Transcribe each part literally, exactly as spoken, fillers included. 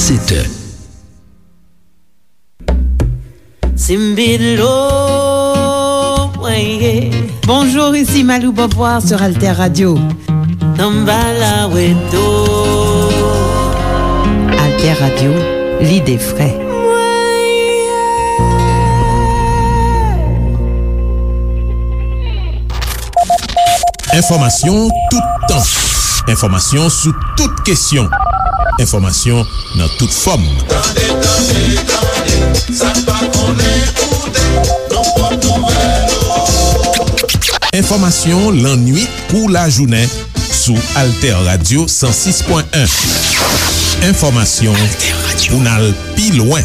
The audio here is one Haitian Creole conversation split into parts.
Sèt è. Simbilo, mwen ye. Bonjour, ici Malou Beauvoir sur Alter Radio. Tanbala weto. Alter Radio, l'idée frais. Mwen ye. Enfòmasyon toutan. Enfòmasyon sou tout kesyon. Enfòmasyon nan tout fòm. Tande, tande, tande, sa n pa konnen koute, nan pwòp nouvèl yo. Enfòmasyon lannuit kou lajounen sou Alter Radio san sis pwen en. Enfòmasyon pou n al pi lwen.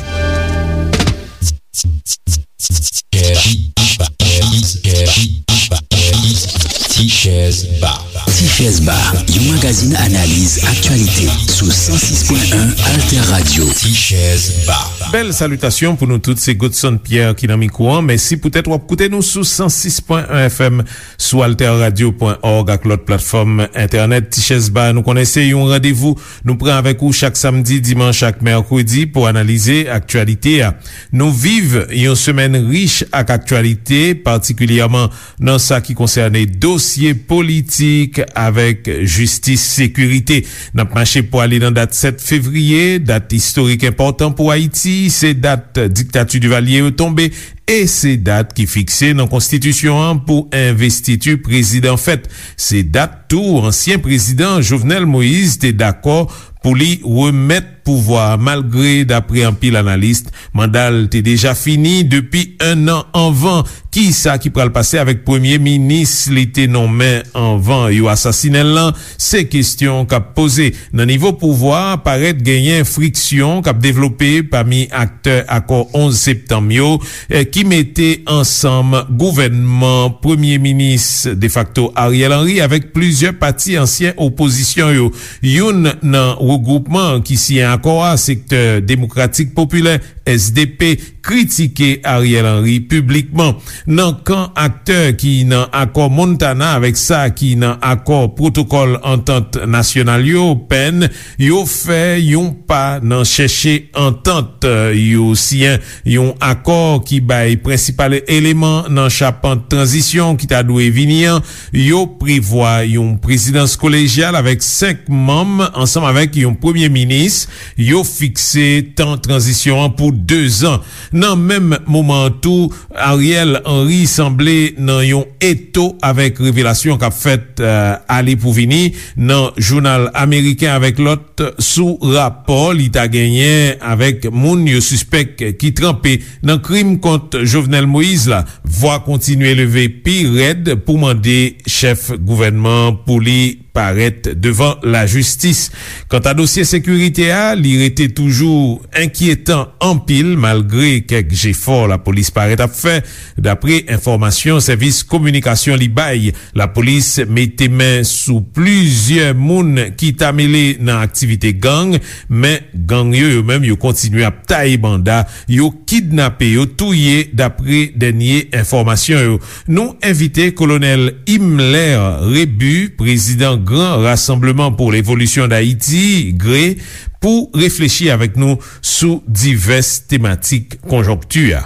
Tichèz Ba. Tichèz Ba, yon magazin analiz aktyalite sou san sis pwen en Alter Radio. Tichèz Ba. Bèl salitasyon pou nou tout, se Godson Pierre ki nan mikwo an. Mèsi poutèt w ap koute nou sou san sis pwen en F M, sou alter radio pwen org ak lòt platfòm entènèt. Tichèz Ba, nou konnen se yon randevou nou pran avèk ou chak samdi, dimanch ak mèkredi pou analize aktyalite a. Nou viv yon semèn rich ak aktyalite, patikilyèman nan sa ki konsène dosye politik avèk jistis, sekirite. N ap mache pou ale nan dat sèt fevriye, dat istorik enpòtan pou Ayiti, se dat diktati Divalye yo tonbe, e se dat ki fikse nan konstitisyon an pou envestiti prezidan fèt. Se dat tou ansyen prezidan Jovenel Moïse te dakò pou li remèt pouvwa a, malgre, dapre anpil analis, manda l te deja fini depi en an anvan. Kisa ki pral pase avèk premye minis li te nonmen anvan yo asasinen l lan? Se kesyon k ap poze. Nan nivo pouvwa a, parèt genyen friksyon k ap devlope pami aktè akò onz septanm yo, eh, ki mete ansanm gouvènman premye minis defakto Ariel Henry avèk plizyè pati ansyen opozisyon yo. Youn nan regwoupman ki siyen akò a, Sektè Demokratik Popilè, S D P, kritike Ariel Henry piblikman. Nan kan aktè ki nan akò Montana avèk sa ki nan akò pwotokòl antant nasyonal yo, pen, yo fè yon pa nan chèche antant. Yo siyen yon akò ki bay prensipal eleman nan chapant tranzisyon ki ta dwe vini an. Yo prevwa yon prezidans kolejyal avèk senk manm ansanm avèk yon premye minis. Yo fikse tan tranzisyon an pou dezan. Nan menm moman an tou, Ariel Henry sanble nan yon eto avèk revelasyon k ap fèt, eh, ale pou vini nan jounal ameriken avèk lòt sou rapò li ta genyen avèk moun yo sispèk ki tranpe nan krim kont Jovenel Moïse la. Vwa kontinye leve pi rèd pou mande chèf gouvènman an pou li parèt devan lajistis. Kanta dosye sekirite a, li rete toujou enkyetan anpil, malgre kèk jefò lapolis parèt ap fè, dapre enfòmasyon sèvis kominikasyon li bay. Lapolis mete men sou plizyè moun ki ta mele nan aktivite gang, men gang yo, yo menm, yo kontinye ap taye banda, yo kidnape, yo touye, dapre dènye enfòmasyon yo. Nou envite Kolonèl Himmler Rebu, prezidan Gran Rassemblement pour l'Évolution d'Haïti, gre, pou reflechi avèk nou sou divès tematik konjonkti a.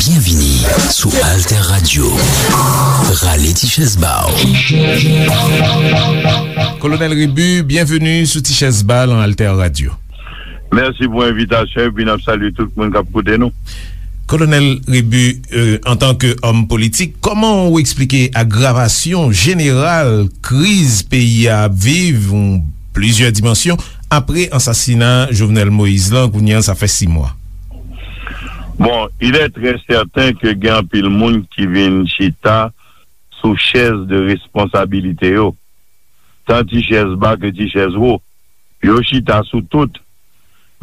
Byenvini sou Alter Radio. Rale ti chèz ba w. Kolonèl Rebu, byenveni sou ti chèz ba lan Alter Radio. Mèsi pou envitasyon epi n ap salye tout moun k ap koute nou. Kolonèl Rebu, euh, antanke òm politik, kòman ou eksplike agravasyon jeneral kriz peyi a ap viv, yon plizyè dimansyon, apre ansasina Jovenel Moïse lan, kounye a sa fè sis mwa? Bon, il est très certain ke gen anpil moun ki vin chita sou chèz de responsabilite yo, tan ti chèz ba ke ti chèz wo. Yo chita sou tout.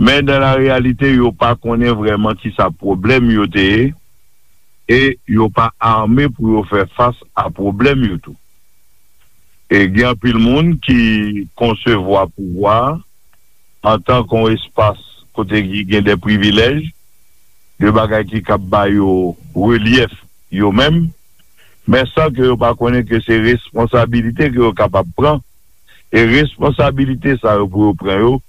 Men dan la reyalite, yo pa konnen vrèman kisa pwoblèm yo te ye, e yo pa ame pou yo fè fas a pwoblèm yo tou. E gen anpil moun ki konsevwa pouvwa a antanke yon espas kote ki gen de privilèj, de bagay ki kab ba yo relyèf yo menm, men san ke yo pa konnen ke se responsabilite ke yo kapab pran, e responsabilite sa yo pou yo pran yo,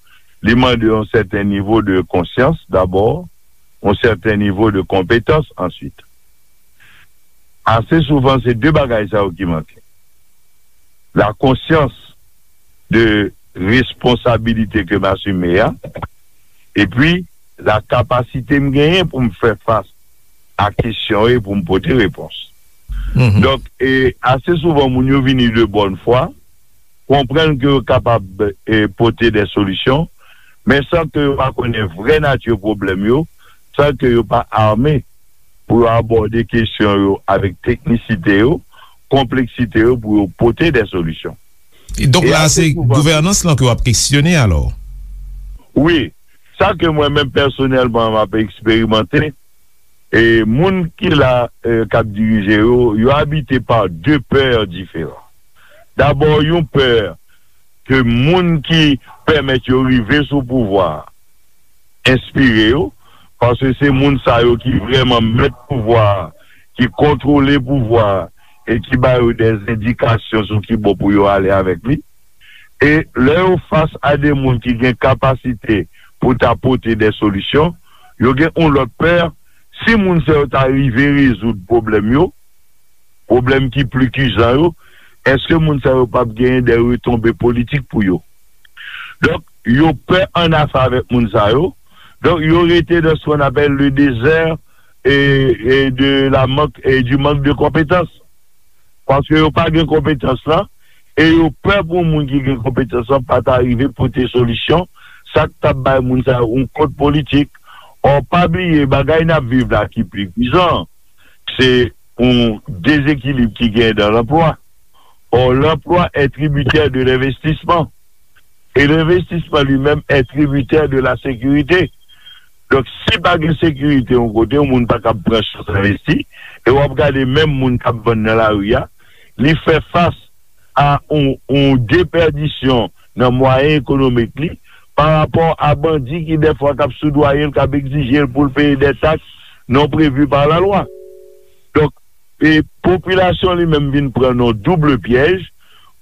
Li mande yon sèten nivo de konsyans dabò, yon sèten nivo de konpetans answit. Ase souvan, se de bagay sa yo ki manke. La konsyans de responsabilite ke m asime a, epi la kapasite m genyen pou m fè fas a kesyon e pou m pote repons. Donk, e, ase souvan, moun yo vini de bòn fwa, konprann ke yo kapab, e, pote de solisyon, men san ke yo pa konnen vrè nati pwoblèm yo, san ke yo pa ame pou yo abòde kesyon yo avèk teknisite yo, konpleksite yo pou yo pote de solisyon. E donk E la, ase se souvan gouvènans lan ke w ap kesyone alò? Wi, sa ke mwen menm pèsonèlman m ap eksperimante, e moun ki la, e, k ap dirije yo, yo abite pa de pè diferan. Dabò, yon pè ke moun ki pèmèt yo rive sou pouvwa a enspire yo, paske se moun sa yo ki vrèman mèt pouvwa a, ki kontwole pouvwa a, e ki ba yo de endikasyon sou ki bò pou yo ale avèk li. E lè yo fas a de moun ki gen kapasite pou ta pote de solisyon, yo gen yon lòt pè, si moun sa yo ta rive rezoud pwoblèm yo, pwoblèm ki pli kijan yo, èske moun sa yo p ap genyen de retonbe politik pou yo? Donk, yo pè annafè avèk moun sa yo. Donk, yo rete dans ce qu'on appelle le désert et, et de la manque, et du manque de compétence. Paske yo pa gen konpetans lan, e yo pè pou moun ki gen konpetans lan pa ta rive pote solisyon, sa k t ap bay moun sa yo yon kont politik. Ò, pa bliye, bagay n ap viv la ki pli pwisan, se yon dezekilib ki genyen dans l'emploi. Or, l'emploi est tributaire de l'investissement. Et l'investissement lui-même est tributaire de la sécurité. Donk, si pa gen sekirite yon kote, yon moun pa kab pran chans envesti, e w ap gade menm moun k ap vann nan lari a, li fè fas a yon, yon depèdisyon nan mwayen ekonomik li, pa rapò a bandi ki dèfwa k ap soudwaye l, k ap egzije l pou l peye de taks non prevu par la lwa. Donk, e popilasyon li menm vin pran nan double pyèj,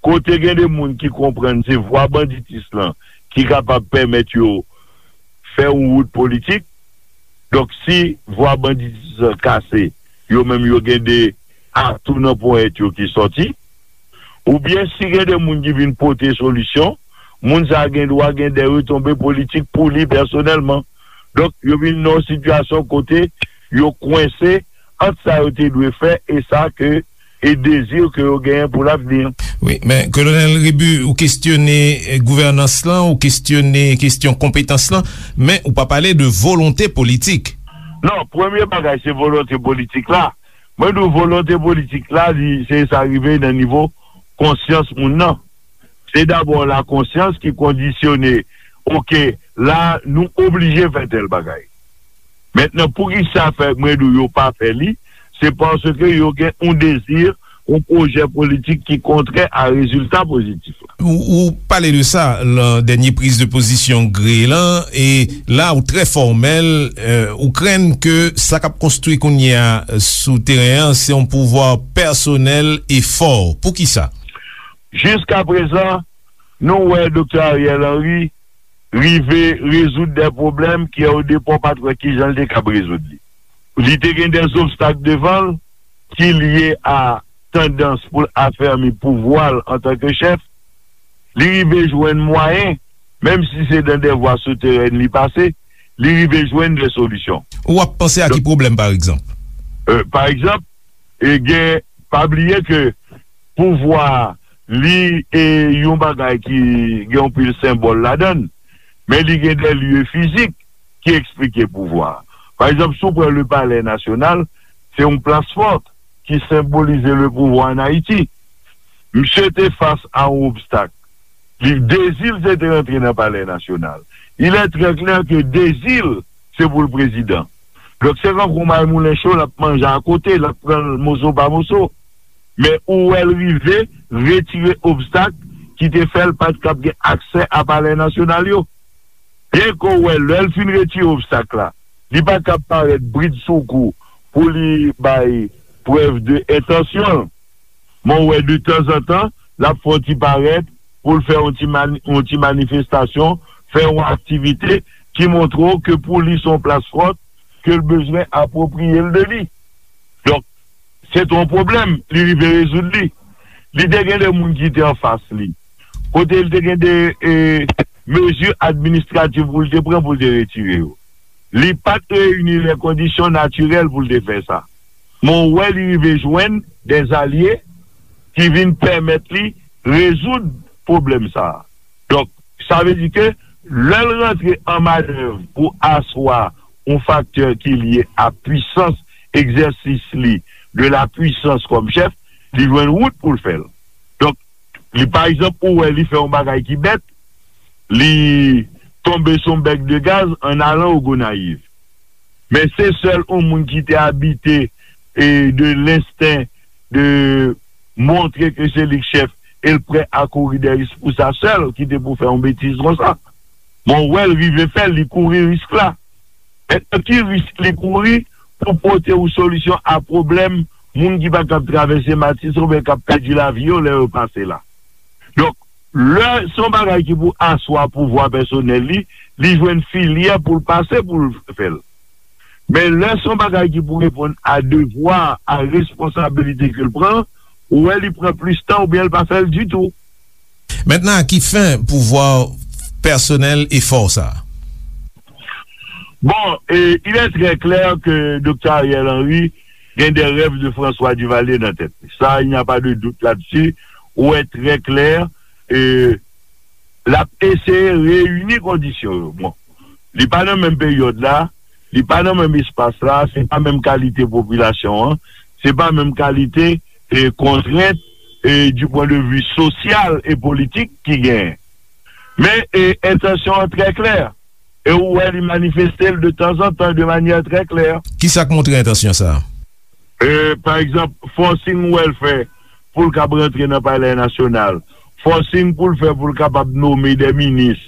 kote gen de moun ki konprann se vwa banditis lan ki kapab pèmèt yo fè yon wout politik. Donk, si vwa banditis lan kase, yo menm yo gen de atou nan ponyèt yo ki sòti. Oubyen si gen de moun ki vin pote solisyon, moun sa a gen dwa gen de retonbe politik pou li pèsonèlman. Donk, yo vin nan yon sitiyasyon kote yo kwense ant sa yo te dwe fè e sa ke, e dezi ke yo genyen pou lavni. Wi, men Kolonèl Rebu, ou kesyone, eh, gouvènans lan, ou kesyone kesyon konpetans lan, men ou pa pale de volonte politik. Non, premye bagay, se volonte politik la. Mwen di w, volonte politik la, li, se sa rive nan nivo konsyans moun nan. Se dabò la konsyans ki kondisyone, oke, la, nou oblije fè tèl bagay. Mentnan, poukisa fè, mwen di w, yo pa fè li? Se paske yo gen yon dezi, yon pwojè politik ki kontrè a rezilta pozitif la. Ou, ou pale de sa lan dènye priz de pozisyon Gre lan, e la ou trè fòmèl, eh, ou krenn ke sa k ap konstwi kounye a, eh, sou teren an, se yon pouvwa pèsonèl e fò. Poukisa? Jiskaprezan, nou wè Doktè Ariel Henry rive rezoud de pwoblèm ke o depa w pa t wè kijan l te kab rezoud li. Li te gen de zobstak devan l ki lye a tandans pou l afèmi pouvwa l antanke chèf. Li rive jwenn mwayen, menm si se dan de vwa souterèn li pase, li rive jwenn de solisyon. Ou ap panse a ki pwoblèm, pa egzanp? Euh, pa egzanp, e gen, pa bliye ke pouvwa a, li, e, yon bagay ki gen yon pil senbòl ladan l, men li gen de lye fizik ki eksplike pouvwa a. Pa egzanp, si w pran le Palè Nasyonal, se yon plas fòt ki senbolize le pouvwa an Ayiti. Misye te fas a yon obstak. Li, dezi l se te rantre nan Palè Nasyonal. Il est très clair que dezi l, se pou l prezidan. Donk, se tankou May Moulen Cho, l ap manje akote, l ap pran l moso pa moso. Men ou wè l rive retire obstak ki te fè l pa t kab gen aksè a Palè Nasyonal yo. Byenke w wè, lè l fin retire obstak la, li pa t kab parèt bridsoukou pou li bay prèv de entansyon l. Men w wè, de tanzantan, l ap fè yon ti parèt pou l fè yon ti mani-, yon ti manifestasyon, fè yon aktivite ki montre w ke pou li se yon plas fòt, ke l bezwen apwopriye l de li. Donk, se te yon pwoblèm, li rive rezoud li. Li te gen de moun ki te anfas li. Kote li te gen de e, mezi administrativ pou l te pran pou l te retire yo. Li pa t reyini lè kondisyon natirèl pou l te fè sa. Men w wè li rive jwenn dèzalye ki vin pèmèt li rezoud pwoblèm sa a. Donk, sa vle di ke lè l rantre an manèv pou aswa yon faktè ki lye a pwisans egzèsis li de la pwisans kòm chèf, li jwenn wout pou l fè l. Donk, li pa egzanp, ou wè li fè yon bagay ki bèt, li tonbe sou yon bèk de gaz an alan o Gonayiv. Men se sèl yon moun ki te abite e de lensten de montre ke se li k chèf e l prè a kouri dèyè risk pou sa sèl ki te pou fè yon betiz konsa. Men w wè l rive fè l, li kouri risk la. Mentnan, ki risk li kouri pou pote yon solisyon a pwoblèm moun ki pa kab travèse Matis oubyen k ap pèdi lavi yo lè yo pase la? Donk, lè se yon bagay ki pou aswa pouvwa pèsonèl li, li jwenn filyè pou l pase pou l fè l. Men lè se yon bagay ki pou reponn a devwa, a responsabilite ke l pran, ou wè li pran plis tan oubyen l pa fè l ditou. Mentnan, à qui fin pouvoir personnel et fò sa? Bon, e, il est très clair que Doktè Ariel Henry gen des rêves de François Duvalier nan tèt li. Sa, il n'y a pas de doute là-dessus. Ou wè trè klè, e, l ap eseye reyini kondisyon yo. Bon, li pa nan menm peryòd la, li pa nan menm espas la, se pa menm kalite popilasyon an, se pa menm kalite e, kontrent e, du point de vue sosyal e politik ki genyen. Men e, entansyon an trè klè. E ou wè li manifeste l de tanzantan de manyè trè klè. Kisa k montre entansyon sa a? E, pa egzanp, forcing ou wè l fè pou l kab rantre nan Palè Nasyonal. Forcing pou l fè pou l kapab nome de minis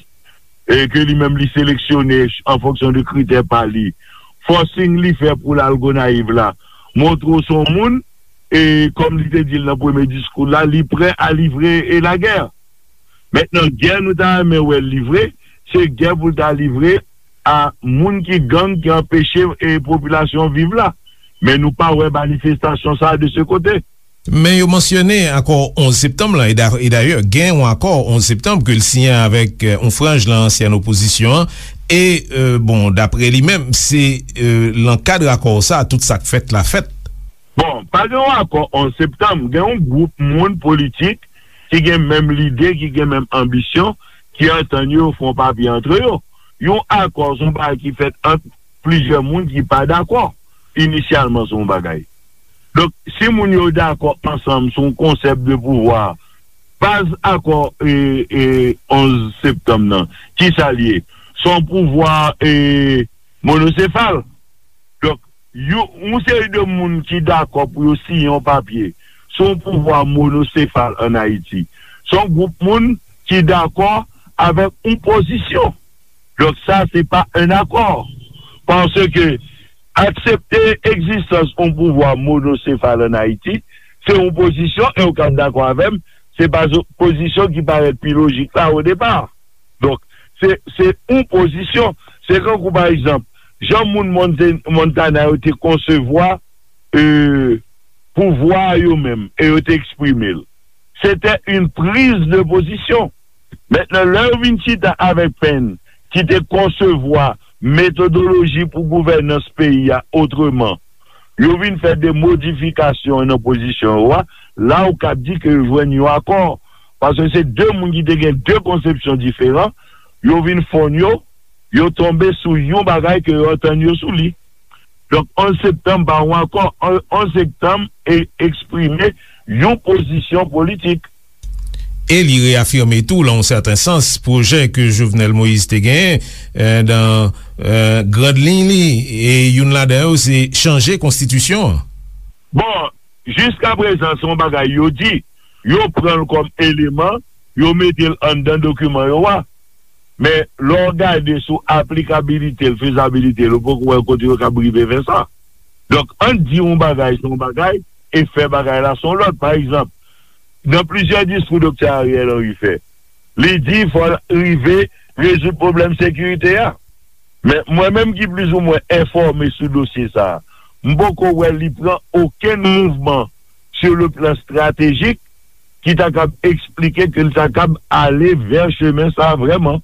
e, ke li menm li seleksyone an fonksyon de kritè pa li. Forcing li fè pou l al Gonayiv la montre w se yon moun e, kòm li te di l nan premye diskou l la, li prè a livre e lagè. Mentnan, gè nou ta renmen wè l livre, se gè pou l ta livre a moun ki gang ki anpeche e, popilasyon viv la. Men nou pa wè manifestasyon sa a de se kote. Men yo mansyone akò onz septanm lan, e da- e dayè, gen yon akò onz septanm ke l siyen avèk e, yon franj nan ansyen opozisyon an, e, e, bon, dapre li menm, se e, nan kad akò sa a tout sa k fèt la fèt. Bon, pa gen yon akò onz septanm, gen yon gwoup moun politik ki gen menm lide, ki gen menm anbisyon, ki antann yo, yo fè yon papye antre yo. Yon akò se yon bagay ki fèt ant plizyè moun ki pa dakò inisyalman sou yon bagay. Donk, si moun yo dakò ansanm sou yon konsèp de pouvwa, baz akò e, e, onz septanm nan, kisa l ye? Se yon pouvwa e, monosefal. Donk, yon, yon seri de moun ki dakò pou yo siyen yon papye sou yon pouvwa monosefal ann Ayiti, se yon gwoup moun ki dakò avèk yon pozisyon. Donk, sa, se pa un accord. Paske aksepte egzistans yon pouvwa monosefal ann Ayiti, se yon pozisyon, e w ka dakò avè m, se pa zo- pozisyon ki parèt pi lojik la o depa. Donk, se, se yon pozisyon. Se kankou, pa egzanp, jan moun Monte- Montana yo te konsevwa e, pouvwa yo menm, e yo te eksprime l. Se te yon priz de pozisyon. Mentnan, lè yo vin chita avèk Penn, ki te konsevwa metodoloji pou gouvènans peyi a otreman, yo vin fè de modifikasyon nan pozisyon yo a, la ou kab di ke yo jwenn yon akò. Paske se de moun ki te gen de konsepsyon diferan, yo vin fonn yo, yo tonbe sou yon bagay ke yo antann yo sou li. Donk, onz septanm pa yon akò, onz septanm e eksprime yon pozisyon politik. E li reyafime tou, nan yon sèten sans, pwojè ke Jovenel Moïse te genyen, e, nan, e, grand liy li, e youn ladan yo se chanje konstitisyon an. Bon, jiskaprezan, se yon bagay yo di, yo pran l kòm eleman, yo mete l anndan dokiman yo a. Men, lè w gade sou aplikabilite l, fezabilite l, ou poko wè kote yo kab rive fè sa. Donk, ann di yon bagay se yon bagay, e fè bagay la se yon lòt. Pa egzanp, nan plizyè diskou Doktè Ariel Henry fè, li di fò l rive rezoud pwoblèm sekirite a. Men mwen menm ki plizoumwen enfòme sou dosye sa a, m poko wè li pran okenn mouvman sur le plan stratégique ki ta kab eksplike ke l ta kab ale vè chemen sa a vrèman.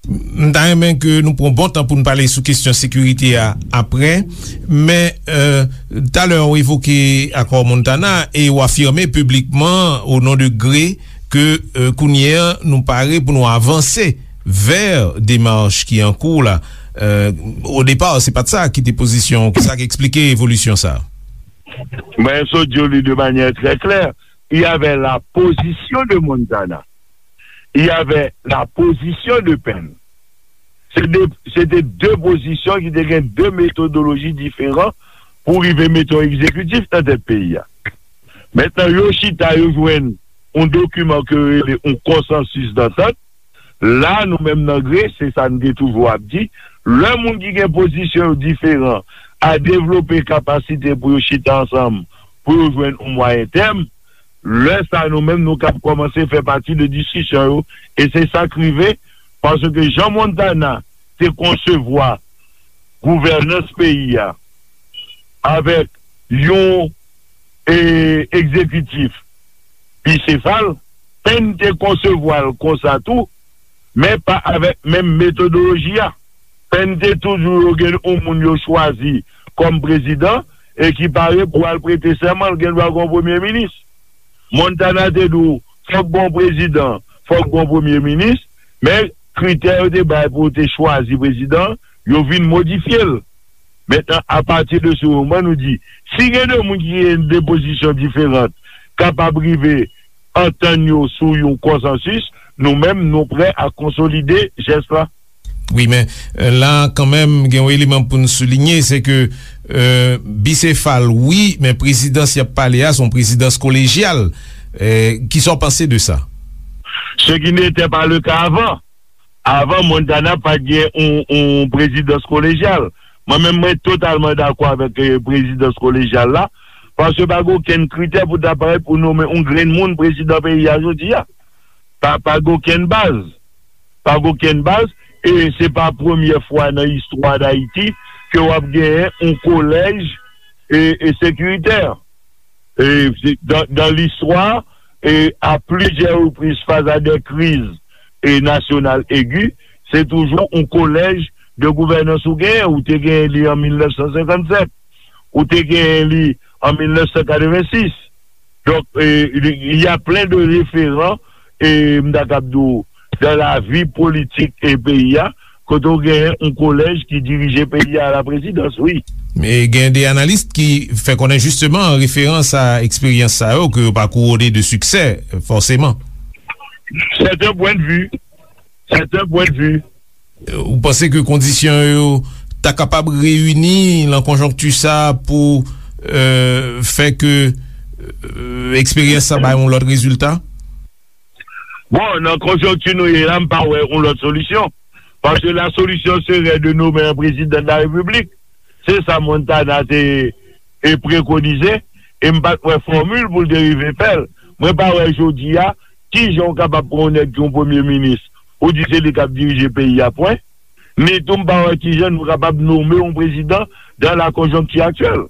M ta renmen ke nou pran bon tan pou n pale sou kesyon sekirite a apre, men, euh, talè w evoke akò Montana e w afime piblikman, o non de Gre, ke, euh, kounye a nou pare pou nou avanse vè demach ki an kou la. Euh, o depa, se pa t sa ki te pozisyon w. Sa k eksplike evolisyon sa a? Mwen sot di w li de manyè trè klè. Il y avait la position de Montana. Il y avait la position de Penn. Se de, se te de pozisyon ki te gen de metodoloji diferan pou rive mete yon egzekitif nan tèt peyi a. Mentnan, yo chita, yo jwenn yon dokiman ke yo rele yon konsansis dantant. La, nou menm nan Gre, se sa n te toujou ap di, lè moun ki gen pozisyon yo diferan a devlope kapasite pou yo chita ansanm, pou yo jwenn yon mwayen tèm, lè sa a, nou menm, nou kab kòmanse fè pati de diskisyon yo. E se sa k rive, paske jan Montana te konsevwa gouvènans peyi a avèk yon, e, egzekitif bisefal, Penn te konsevwa l konsa tou, men pa avèk menm metodoloji a. Penn te toujou yo gen yon moun yo chwazi kòm prezidan e ki pare pou al prete sèman, l gen dwa gen yon premye minis. Montana te di w, fòk gen yon prezidan, fòk gen yon premye minis, men kritè yo te bay pou yo te chwazi prezidan, yo vin modifye l. Mentnan, apati de se moman, nou di, si gen de moun ki gen de pozisyon diferan, kapab rive antann yo sou yon konsansis, nou menm, nou prè a konsolide jès la. Wi, men, euh, la, kanmenm, gen yon eleman pou n soulinye, se ke, euh, bisefal, wi, men prezidans y ap pale a, se yon prezidans kolejyal. Euh, kisa w panse de sa? Ce qui n'était pas le cas avant. Avan, Montana pa t gen yon, yon prezidans kolejyal. Mwen menm, mwen totalman dakò avèk, eh, prezidans kolejyal la, paske pa gen okenn kritè pou ta parèt pou nonmen yon grenn moun prezidan peyi a jodi a. Pa, pa gen okenn baz. Pa gen okenn baz, e se pa premyè fwa nan istwa Dayiti ke w ap genyen yon kolèj, e, e sekiritè. E, se, dans, dans l'histoire, e, à plusieurs reprises, face à des crises, e, nationales aiguës, se toujou yon kolèj de gouvènans ou genyen. Ou te genyen li an mil nèf san senkannsenk, ou te genyen li an mil nèf san katrevensis. Donk, e, il y a plein de référents, e, m ta kab di w, dans la vie politique e peyi a, kote w genyen yon kolèj ki dirije peyi a la prezidans, wi. Men gen de analis ki fè konnen jisteman referans a eksperyans sa yo ke yo pa kouwone de siksè, fòseman. C'est un point de vue. C'est un point de vue. Ou panse ke kondisyon yo ta kapab reyini nan konjonkti sa a pou, euh, fè ke, euh, eksperyans sa bay yon lòt rezilta? Bon, nan konjonkti nou ye la, m pa wè yon lòt solisyon. Paske la solution serait de nommer un président de la République. Se sa Montana te, e, prekonize, e m pa t wè fòmil pou l te rive fè l. Mwen pa wè jodi a, kijan w kapab pran yon nèg ki yon premye minis, ou di se li k ap dirije peyi a, pwen. Ni tou m pa wè kijan nou kapab nonmen yon prezidan dans la conjoncture actuelle.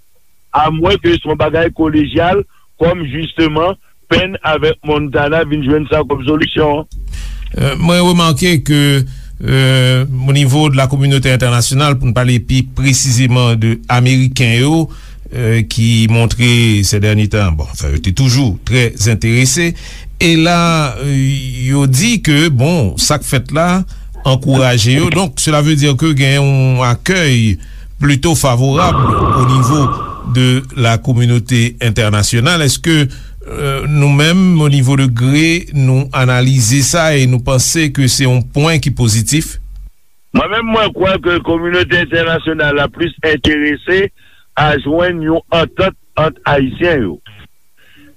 Amwen ke se yon bagay kolejyal, kòm jisteman Penn avèk Montana vin jwenn sa kòm solisyon an. Euh, mwen remake ke, euh, o nivo de la kominote entènasyonal, pou n pale pi presizeman de Ameriken yo, euh, ki montre se dènye tan, bon, anfen, yo te toujou trè enterese. E la, euh, yo di ke, bon, sa k fèt la ankouraje yo. Donk, cela veut dire que gen yon akèy plito favorab o nivo de la kominote entènasyonal. Èske, euh, nou menm, o nivo de Gre, nou analize sa e nou panse ke se yon pwen ki pozitif? Mwen menm, mwen kwè ke kominote entènasyonal la plis enterese a jwenn yon antant ant Ayisyen yo.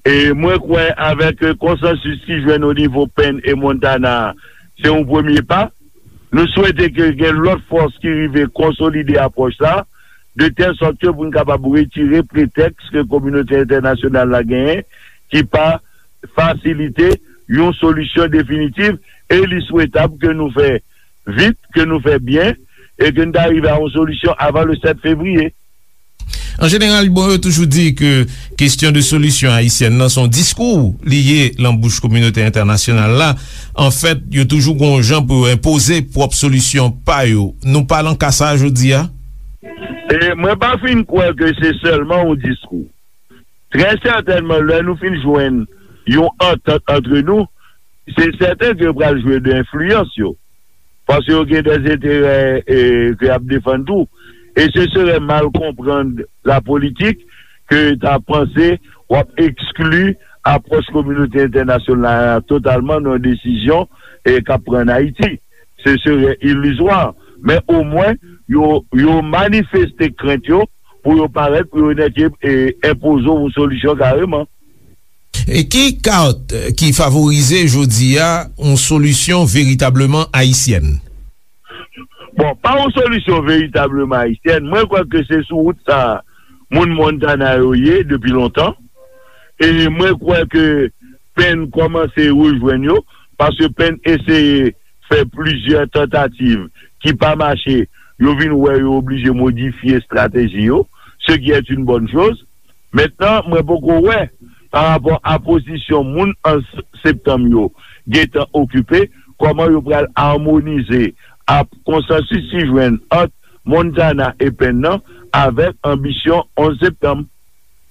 E mwen kwè avèk, euh, konsansis ki jwenn o nivo Penn e Montana, se yon premye pa. Nou swete ke gen lòt fòs ki rive konsolide apwòch sa, de tèl sòt ke pou n kapab retire pretèks ke kominote entènasyonal la genyen, ki pa fasilite yon solisyon definitif, e li swetab ke nou fè vit, ke nou fè byen, e ke n ta rive a yon solisyon avan le sèt fevriye. An jeneral, bon, yo toujou di ke kesyon de solisyon ayisyèn nan se yon diskou li ye lan bouch kominote entènasyonal la. Anfèt, yo toujou gon jan pou yo enpoze pwòp solisyon pa yo. Nou pa lan ka sa a jodi a? E mwen pa fin kwè ke se sèlman yon diskou. Trè sètènman, lè nou fin jwenn yon antant antre nou, se sèten ke yo pral jwe de enfliyans yo. Paske yo gen dè enterè, e, ke y ap defann tou. E se serè mal konprann la politik ke ta panse w ap ekskli apwòch kominote entènasyonal la totalman nan desizyon, e, k ap pran ann Ayiti. Se serè ilizwa. Men omwen, yo, yo manifeste krent yo pou yo parèt, pou yo nèke, e, enpoze yon solisyon kareman. E ki kat, e, ki favorize jodi a yon solisyon veritableman ayisyèn? Bon, pa yon solisyon veritableman ayisyèn, mwen kwè ke se sou wout sa a moun Montana yo ye depi lontan. E mwen kwè ke Penn kòmanse rejwenn yo, paske Penn eseye fè plizyè tantativ ki pa mache, yo vin wè yo oblije modifye estrateji yo, ce qui est une bonne chose. Mentnan, mwen poko wè, pa rapò a pozisyon moun onz septanm yo gentan okipe, kòman yo pral amonize a konsansis ki jwenn ant Montana e Penn nan avèk anbisyon onz septanm.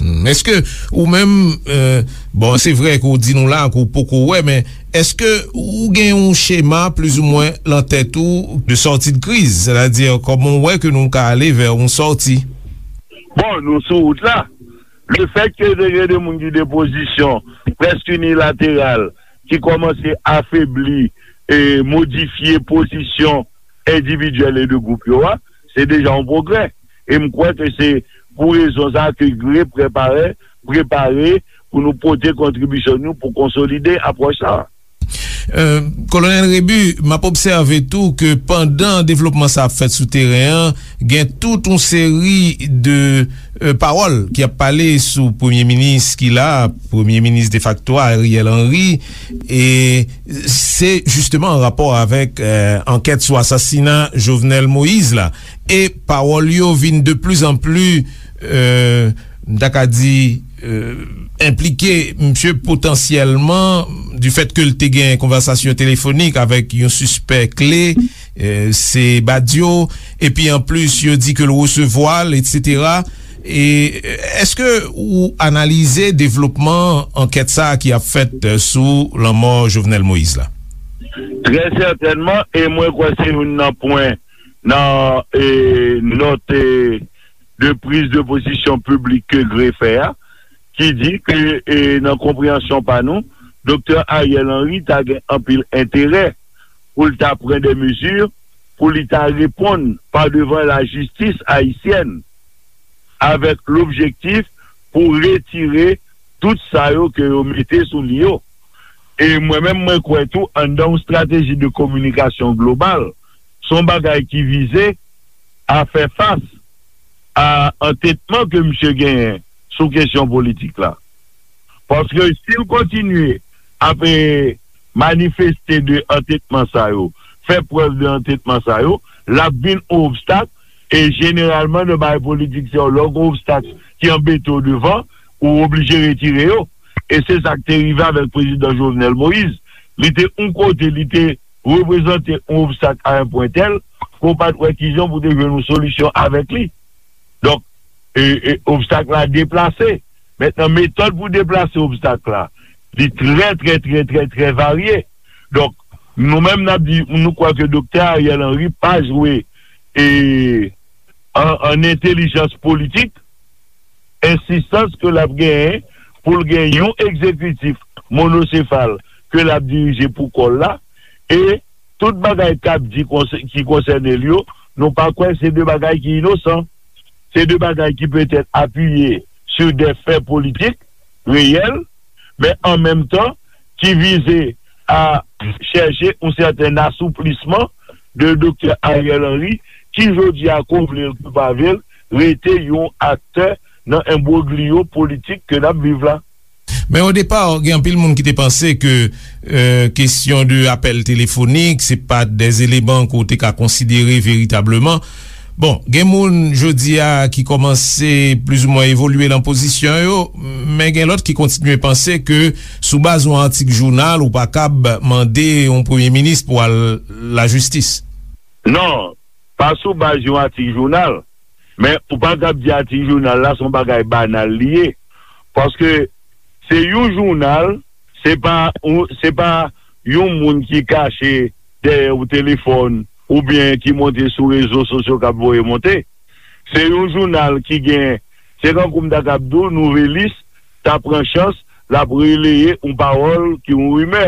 Hmm, èske ou menm, euh, bon, se vre ke w di nou la ke w poko wè, men èske ou gen yon chema plizoumwen lan tèt ou de sortie de crise, sètadi kòman w wè ke nou ka ale vè yon sòti? Bon, nou sou wout la. Lefèt ke te gen de moun ki de pozisyon prèske inilateral, ki kòmanse afebli e modifye pozisyon endividyèl e de gwoup yo a, se deja yon pwogrè. E m kwè ke se pou rezon sa a ke GREE prepare, prepare pou nou pote kontribisyon nou pou konsolide apwòch sa a. Euh, Kolonèl Rebu, m ap obsève tou ke pandan devlopman sa ap fèt sou teren an, gen tout yon seri de, euh, pawòl ki ap pale sou premye minis ki la, premye minis defakto a, Ariel Henry, e se jisteman an rapò avèk, euh, ankèt sou asasina Jovenel Moïse la. E pawòl yo vin de pli an pli, euh, m ta ka di, euh, enplike misye potansyèlman, du fait ke l te gen konvèsasyon telefonik avèk yon sispè kle, euh, se Badio, epi anplis, yo di ke l resevwa l, etsetera. E, euh, èske ou analize devlopman ankèt sa a ki ap fèt, euh, sou lanmò Jovenel Moïse la? Trè sètènman, e mwen kwè se youn nan pwen nan, e, nòt, e, de priz de pozisyon piblik ke GREE fè a, ki di ke, e, nan konpreyansyon pa nou, Doktè Ariel Henry ta gen anpil enterè pou l ta pran de mezi pou li ta reponn pa devan lajistis ayisyèn avèk lobjektif pou retire tout sa yo ke yo mete sou li yo. E mwen menm, mwen kwè tou, anndan yon estrateji de kominikasyon global, se yon bagay ki vize a fè fas a antetman ke misye genyen sou kesyon politik la. Paske si l kontinye ap, e, manifeste de antetman sa yo, fè prèv de antetman sa yo, l ap vin yon obstak, e jeneralman nan bagay politik se yon lè w gen obstak ki anbete w devan, ou oblije retire yo. E se sa k te rive avèk prezidan Jovenel Moïse. Li te yon kote, li te reprezante yon obstak a yon pwen tèl, ke w pa t wè kijan pou te jwenn yon solisyon avèk li. Donk, e, e, obstak la deplase. Mentnan, metòd pou deplase obstak la, li trè, trè, trè, trè, trè varye. Donk, nou menm n ap di, nou kwè ke Doktè Ariel Henry pa jwe, e, an, an entèlijans politik, ensistans ke l ap genyen pou l gen yon egzekitif monosefal ke l ap dirije pou kò l la, e tout bagay k ap di konsè-, ki konsène l yo, nou pa kwè se de bagay ki inosan. Se de bagay ki petèt apiye sou de fè politik reyèl, men an menm tan ki vize a chèche yon sèten asouplisman de Doktè Ariel Henry, ki jodi a, ke w vle l, ke w pa vle l, rete yon aktè nan enbrogliyo politik ke n ap viv la. Men o depa, gen anpil moun ki te panse ke, e, kesyon de apèl telefonik, se pa de eleman ke w te ka konsidere veritableman. Bon, gen moun jodi a ki kòmanse plizoumwen evolye nan pozisyon yo, men gen lòt ki kontinye panse ke sou baz yon atik jounal, ou pa kab mande yon premye minis pou al lajistis. Non, pa sou baz yon atik jounal. Men ou pa kab di atik jounal la se yon bagay banal li ye. Paske se yon jounal, se pa, se pa yon moun ki kache dèyè yon telefòn oubyen ki monte sou rezo sosyo k ap voye monte. Se yon jounal ki gen, se kankou m ta kab di w, nouvelis ta pran chans l ap releye yon pawòl ki yon rimè,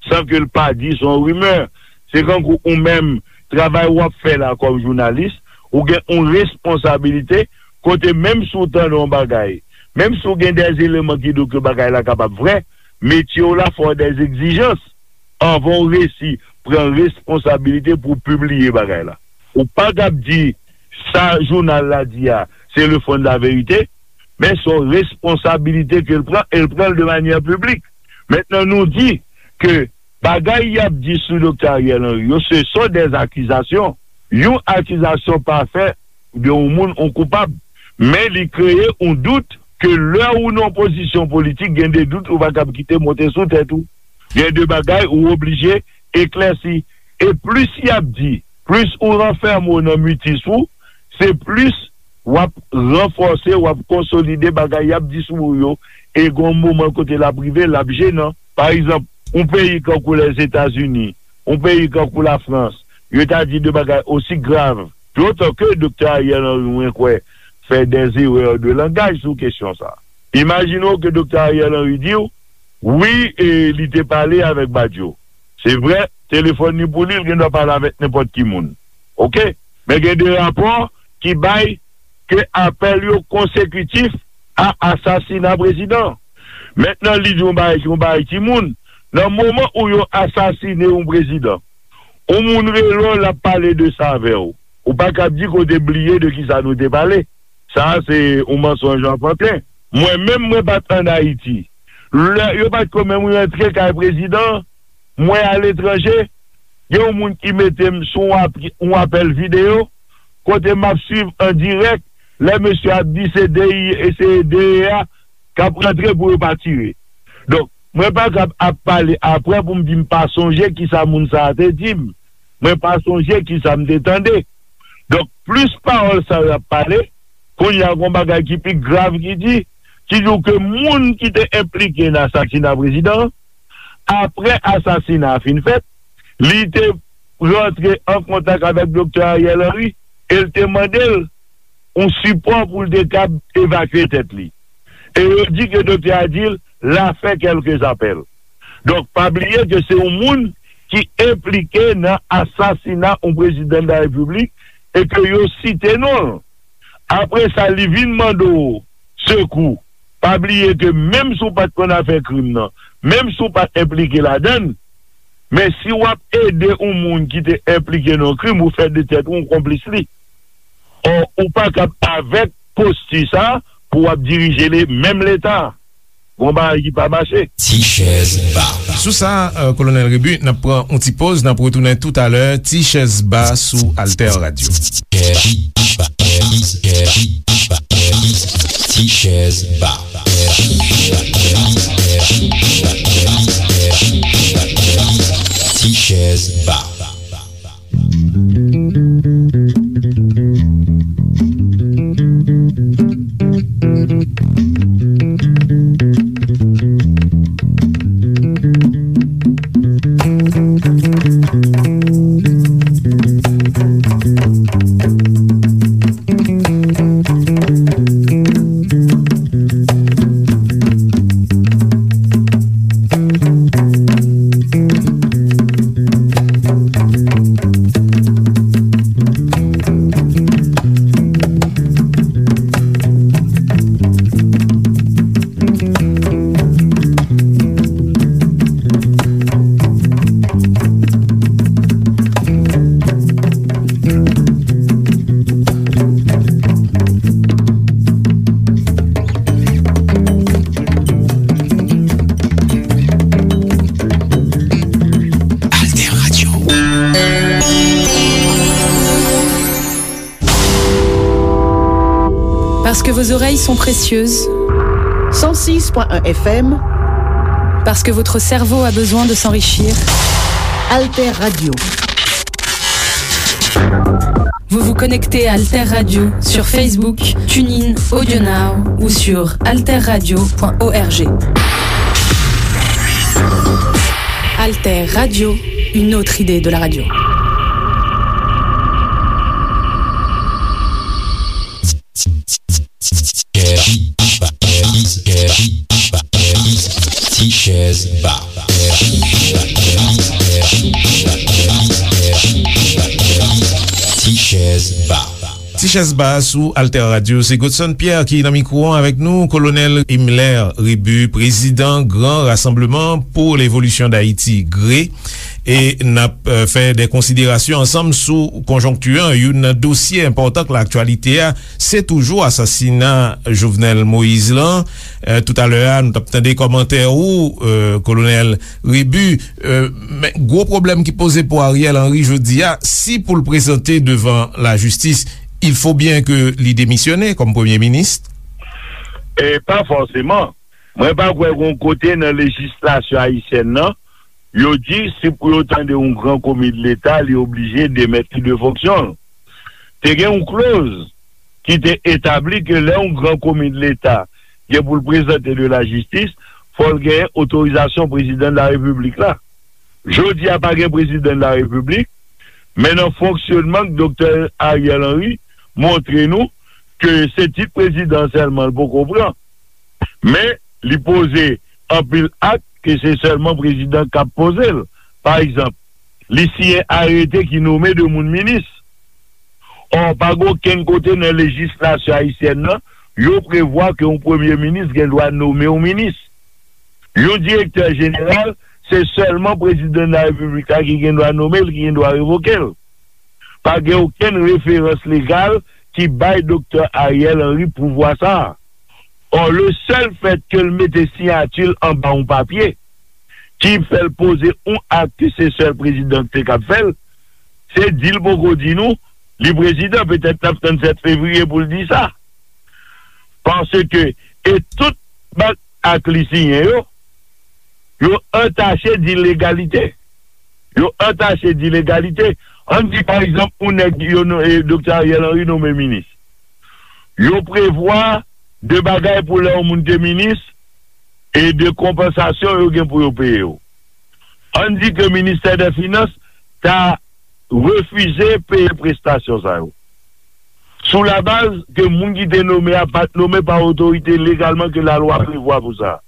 san ke l pa di se yon rimè. Se kankou ou menm, travay w ap fè la kòm jounalis, ou gen yon responsablite kote menm si w tande yon bagay, menm si w gen de eleman ki di w ke bagay la kapab vrè, metye w la fè w de egzijans anvan w resi pran responsablite pou w pibliye bagay la. Ou pa kab di sa jounal la di a, se le fond de la vérité, men se yon responsablite ke l pran, e l pran l de manyè piblik. Mentnan, nou di ke bagay y ap di sou Doktè Ariel Henry yo, se sont des accusations. Yon akizasyon pa fè de yon moun yon koupab, men li kreye yon dout ke lè ou nan yon pozisyon politik, gen de dout ou pa kab kite monte sou tèt ou. Gen de bagay ou oblije eklèsi. E plis y ap di, plis ou ranfème w nan mitis ou, se plis w ap ranfòse, w ap konsolide bagay y ap di sou ou yo, e gen yon moman kote l ap rive, l ap jenan. Pa egzanp, yon peyi kankou Lèzetazini, yon peyi kankou Lafrans, yo ta di de bagay osi grav. Dotan ke Doktè Ariel Henry, mwen kwè, fè des erreurs de langage sou kesyon sa. Imajine w ke Doktè Ariel Henry di w, wi, e li te pale avèk Badio. Se vrè, telefòn li pou li, l gen dwa pale avèk nenpòt ki moun. Oke? Men gen de rapò ki bay ke apèl yo konsekitif a asasina prezidan. Mentnan, li di yon bagay, yon bagay timoun. Nan moman ou yo asasine yon prezidan, yon moun rele w, l ap pale de sa avè w. Ou pa kab di ke w te bliye de kisa nou te pale. Sa a se yon mansonj anfanten. Mwen menm, mwen pa t ann Ayiti. Lè yo pa t ko menm rantre kay prezidan, mwen aletranje, gen yon moun ki mete m sou yon ap-, yon apèl videyo, kote m ap swiv an dirèk, lè mesye ap di se D I E, se D E A k ap rantre pou yo pa tire. Donk, mwen pa kab ap pale apre pou m di m pa sonje kisa moun sa a te di m. Mwen pa sonje kisa m te tande. Donk, plis pawòl sa yo ap pale, kounye a gon bagay ki pi grav ki di, ki di w ke moun ki te enplike nan asasina prezidan an, apre asasina a fin fèt, li te rantre an kontak avèk Doktè Ariel Henry e l te mande l yon sipò pou l te kab evakye tèt li. E yo di ke doktè a di l, l a fè kèlke apèl. Donk, pa bliye ke se yon moun ki enplike nan asasina yon prezidan de la repiblik e ke yo site non l. Apre sa, li vin mande w sekou. Pa bliye ke menm si w pa t konn afè krim nan, menm si w pa t enplike ladan l, men si w ap ede yon moun ki te enplike nan yon krim, ou fè de tèt ou yon konplis li. Ò, ou pa kab avèk posti sa a pou w ap dirije le, menm Leta. Gon bagay ki pa mache. Ti chèz ba. Sou sa, euh, Kolonèl Rebu, n ap pran yon ti poz, n ap retounen toutalè. Ti chèz ba sou Alter Radio. Ti chèz ba. Ti chèz ba. Parce que vos oreilles sont précieuses. Cent six point un F M. Parce que votre cerveau a besoin de s'enrichir. Alter Radio. Vous vous connectez à Alter Radio sur Facebook, TuneIn, AudioNow ou sur alter radio point org. Alter Radio, une autre idée de la radio. Ti chèz ba. Ti chèz ba. Ti chèz ba sou Alter Radio. Se Godson Pierre ki nan mikwo an avèk nou. Kolonèl Himmler Rébu, prezidan Gran Rassemblement pour l'Évolution d'Haïti, gre. E n ap, eh, fè de konsiderasyon ansanm sou konjonkti an. Youn nan dosye enpòtan k laktyalite a, se toujou asasina Jovenel Moïse lan. Eh, toutalè a, nou t ap tande kòmantè ou, eh, Kolonèl Rébu. Eh, men gwo pwoblèm ki poze pou Ariel Henry jodi a, si pou l prezante devan lajistis, il faut bien que li demisyone kòm premye minis. E pa fòseman. Mwen pa kwè gon kote nan lejislasyon ayisyèn nan, yo di si pou yo tande yon gran komi de Leta, li oblije demèt li de fonksyon l. Te gen yon kloz ki te etabli ke lè yon gran komi de Leta gen pou l prezante de lajistis, fò l genyen otorizasyon prezidan de la repiblik la. Jodi a pa gen prezidan de la repiblik, men nan fonksyonman k Doktè Ariel Henry montre nou ke se tit prezidan sèlman l poko pran. Men, li poze anpil ak ke se sèlman prezidan k ap poze l. Pa egzanp, li siyen arete ki nome de moun minis. Ò, pa gen okenn kote nan lejislasyon ayisyèn nan, yo prevwa ke yon premye minis gen dwa nome yon minis. Yon direktè jeneral, se sèlman prezidan de la repiblik la ki gen dwa nome l, ki gen dwa revoke l. Pa gen okenn referans legal ki bay Doktè Ariel Henry pouvwa sa a. Ò, le sèl fèt ke l mete siyati l anba yon papye ki fè l poze yon ak ke se sèl prezidan ki te kab fè l, se di l poko di nou li prezidan. Petèt n ap tann sèt fevriye pou l di sa. Paske, e tout bann ak li siyen yo, yo antache dilegalite. Yo antache dilegalite. Ann di, pa egzanp, yon nèg yo no-, e, Doktè Ariel Henry nonmen minis. Yo prevwa de bagay pou lè yon moun te minis e de konpansasyon yo gen pou yo peye yo. Ann di ke Ministè dè Finans ta refize peye prestasyon sa yo. Sou labaz ke moun ki te nome a pa t nome pa otorite legalman ke lalwa prevwa pou sa.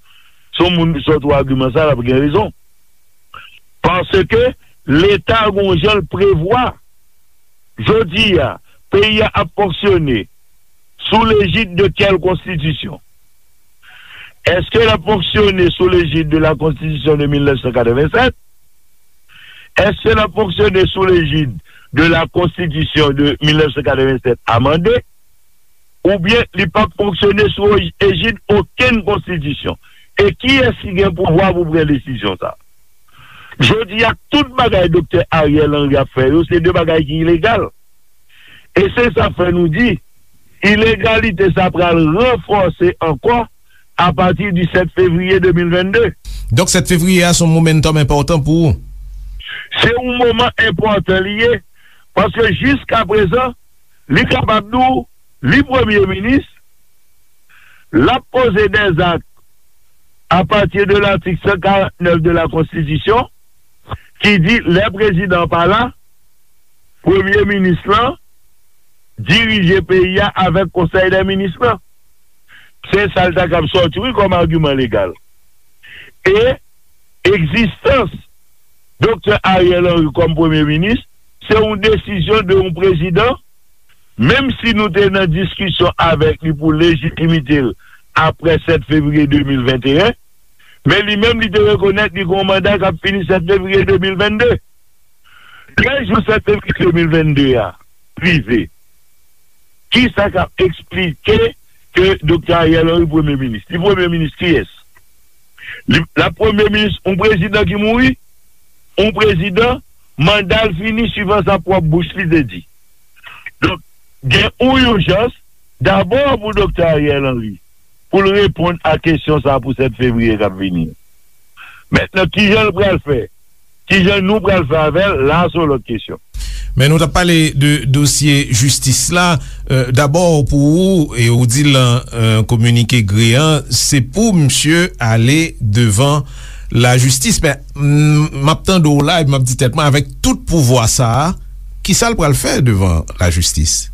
Se yon moun ki sòti w agiman sa, l ap gen rezon. Paske Leta gon jan l prevwa. Jodi a, peyi a ap fonksyone sou lejid de kèl konstitisyon? Èske l ap fonksyone sou lejid de la Konstitisyon de mil nèf san katrevennsèt? Èske l ap fonksyone sou lejid de la Konstitisyon de mil nèf san katrevennsèt amande? Oubyen li p ap fonksyone sou ej-, ejid okenn konstitisyon? E kiyès ki gen pouvwa pou pran desizyon sa? Jodi a, tout bagay Doktè Ariel Henry ap fè yo, se de bagay ki ilegal. E se sa k fè nou di, ilegalite sa pral ranfòse ankò apati di sèt fevriye de mil vennde. Donk, sèt fevriye a se yon momentum enpòtan pou ou? Se yon moman enpòtan li ye, paske jiskaprezan, li kapab di w, li premye minis, l ap poze dèzak apati de latik san karant nèf de la Konstitisyon, ki di lè prezidan an pa la, premye minis lan dirije peyi a avèk konsèy dè minis lan. Se sa l ta kab sòti, wi, kòm agiman legal. E egzistans Doktè Ariel Henry kòm premye minis, se yon desizyon de yon prezidan, menm si nou te nan diskisyon avèk li pou lejitimite l apre sèt fevriye de mil venteyen, men li menm li te rekonèt li gen yon manda k ap fini sèt fevriye de mil vennde. Trèz jou sèt fevriye de mil vennde a rive. Kisa k ap eksplike ke Doktè Ariel Henry premye minis? Li premye minis kiyès? Li, l ap premye minis yon prezidan ki mouri? Yon prezidan, manda l fini, swivan sa pwòp bouch li te di. Donk, gen yon ijans dabò pou Doktè Ariel Henry, pou l reponn a kesyon sa a pou sèt fevriye k ap vini. Mentnan, kijan l pral fè? Kijan nou pral fè avè l? La a se yon lòt kesyon. Men nou t ap pale de dosye jistis la. Euh, dabò, pou ou, e ou di l nan, euh, kominike GREE an, se pou misye ale devan lajistis. Men, m, m ap tande w la, epi m ap di tèt mwen, avèk tout pouvwa sa a, kisa l pral fè devan lajistis?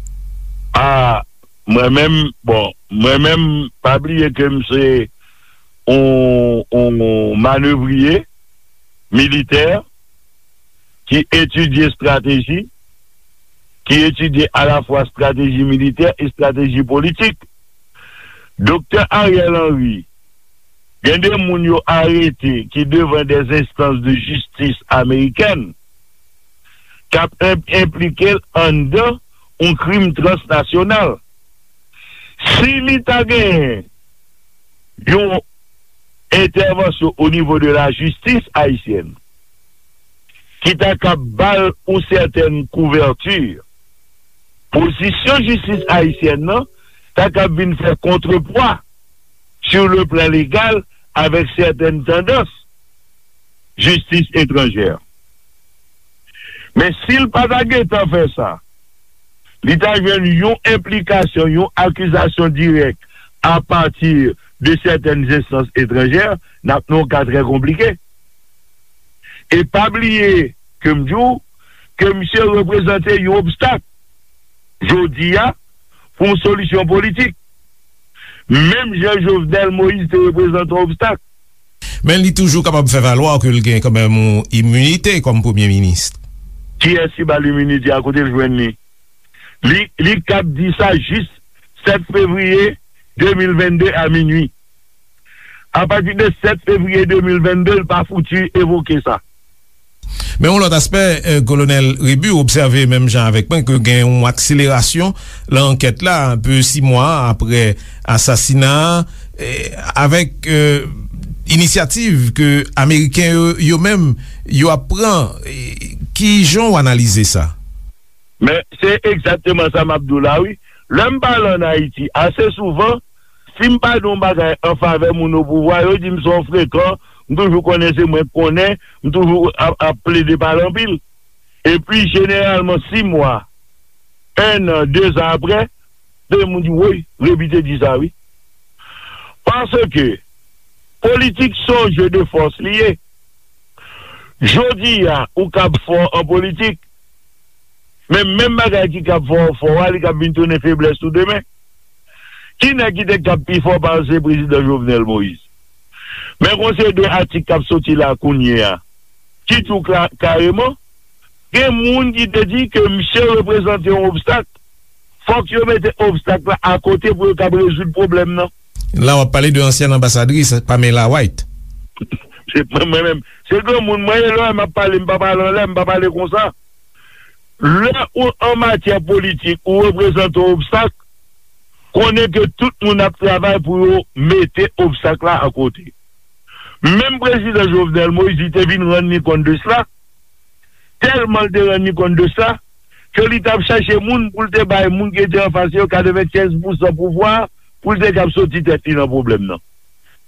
A, mwen menm, bon, mwen menm, pa bliye ke m se yon, yon manevriye militè ki etidye estrateji, ki etidye alafwa estrateji militè e estrateji politik. Doktè Ariel Henry, gen de moun yo arete ki devan des instances de justice américaines k ap enp-, enplike l anndan yon krim transnasyonal. Si li ta genyen yon entèvansyon o nivo de lajistis ayisyèn ki ta kab ba l yon sètèn kouvèti, pozisyon jistis ayisyèn nan ta kab vin fè kontrepwa sur le plan legal avec certaines tendances justice étrangère. Men si l pa ta gentan fè sa, li ta jwenn yon enplikasyon, yon akizasyon dirèk apati de sètèn enstans etranjè, n ap nan yon ka trè konplike. E pa bliye ke m di w ke misye reprezante yon obstak jodi a pou yon solisyon politik. Menm jan Jovenel Moïse te reprezante yon obstak. Men li toujou kapab fè valwa ke l gen kanmenm yon iminite kòm premye minis. Kiyès ki ba l iminite a? Kote l jwenn li? Li, li kab di sa jis sèt fevriye de mil venn de a minui. Apati de sèt fevriye de mil venn de, l pa fouti evoke sa. Men yon lòt aspè, eh, Kolonèl Rébu obsève menm jan avèk mwen ke gen yon akselerasyon nan ankèt la, enpe sis mwa apre asasina a, eh, avèk, eh, inisyativ ke Ameriken yo, yo menm, yo ap pran. Eh, ki jan w analize sa? Men se egzakteman sa m ap di w la, wi. Lè m pale ann Ayiti, ase souvan, si m pa di yon bagay an favè moun o pouvwa, yo di m se yon frekan, m toujou konnen se mwen k konnen, m toujou ap, ap plede pale anpil. Epi, jeneralman, sis mwa, en an, dezan apre, de moun di, woy, Rébu te di sa, wi. Paske politik se yon jeu de force li ye. Jodi a, ou kab fò an politik, men menm bagay ki kab fè w fò a, li kab vin tounen feblès ou demen. Ki nèg ki te kab pi fò pase prezidan Jovenel Moïse? Men gon seri de atik k ap soti la kounye a, ki di w kla-, kareman, gen moun ki te di ke misye reprezante yon obstak. Fòk yo mete obstak la akote pou yo kab rezoud pwoblèm nan. La w ap pale de ansyèn anbasadris Pamela White. Se mwen, mwen menm. Se granmoun mwen ye, lè m ap pale, m pa pale anlè, m pa pale konsa. Lè ou an matyè politik, ou reprezante yon obstak, konnen ke tout moun ap travay pou yo mete obstak la akote. Menm prezidan Jovenel Moïse, li te vin rann li kont de sla, tèlman l te rann li kont de sa, ke li t ap chache moun pou l te bay moun ki te anfas yo katrevenkenz pousan pouvwa a, pou l te kab soti tèt li nan pwoblèm nan.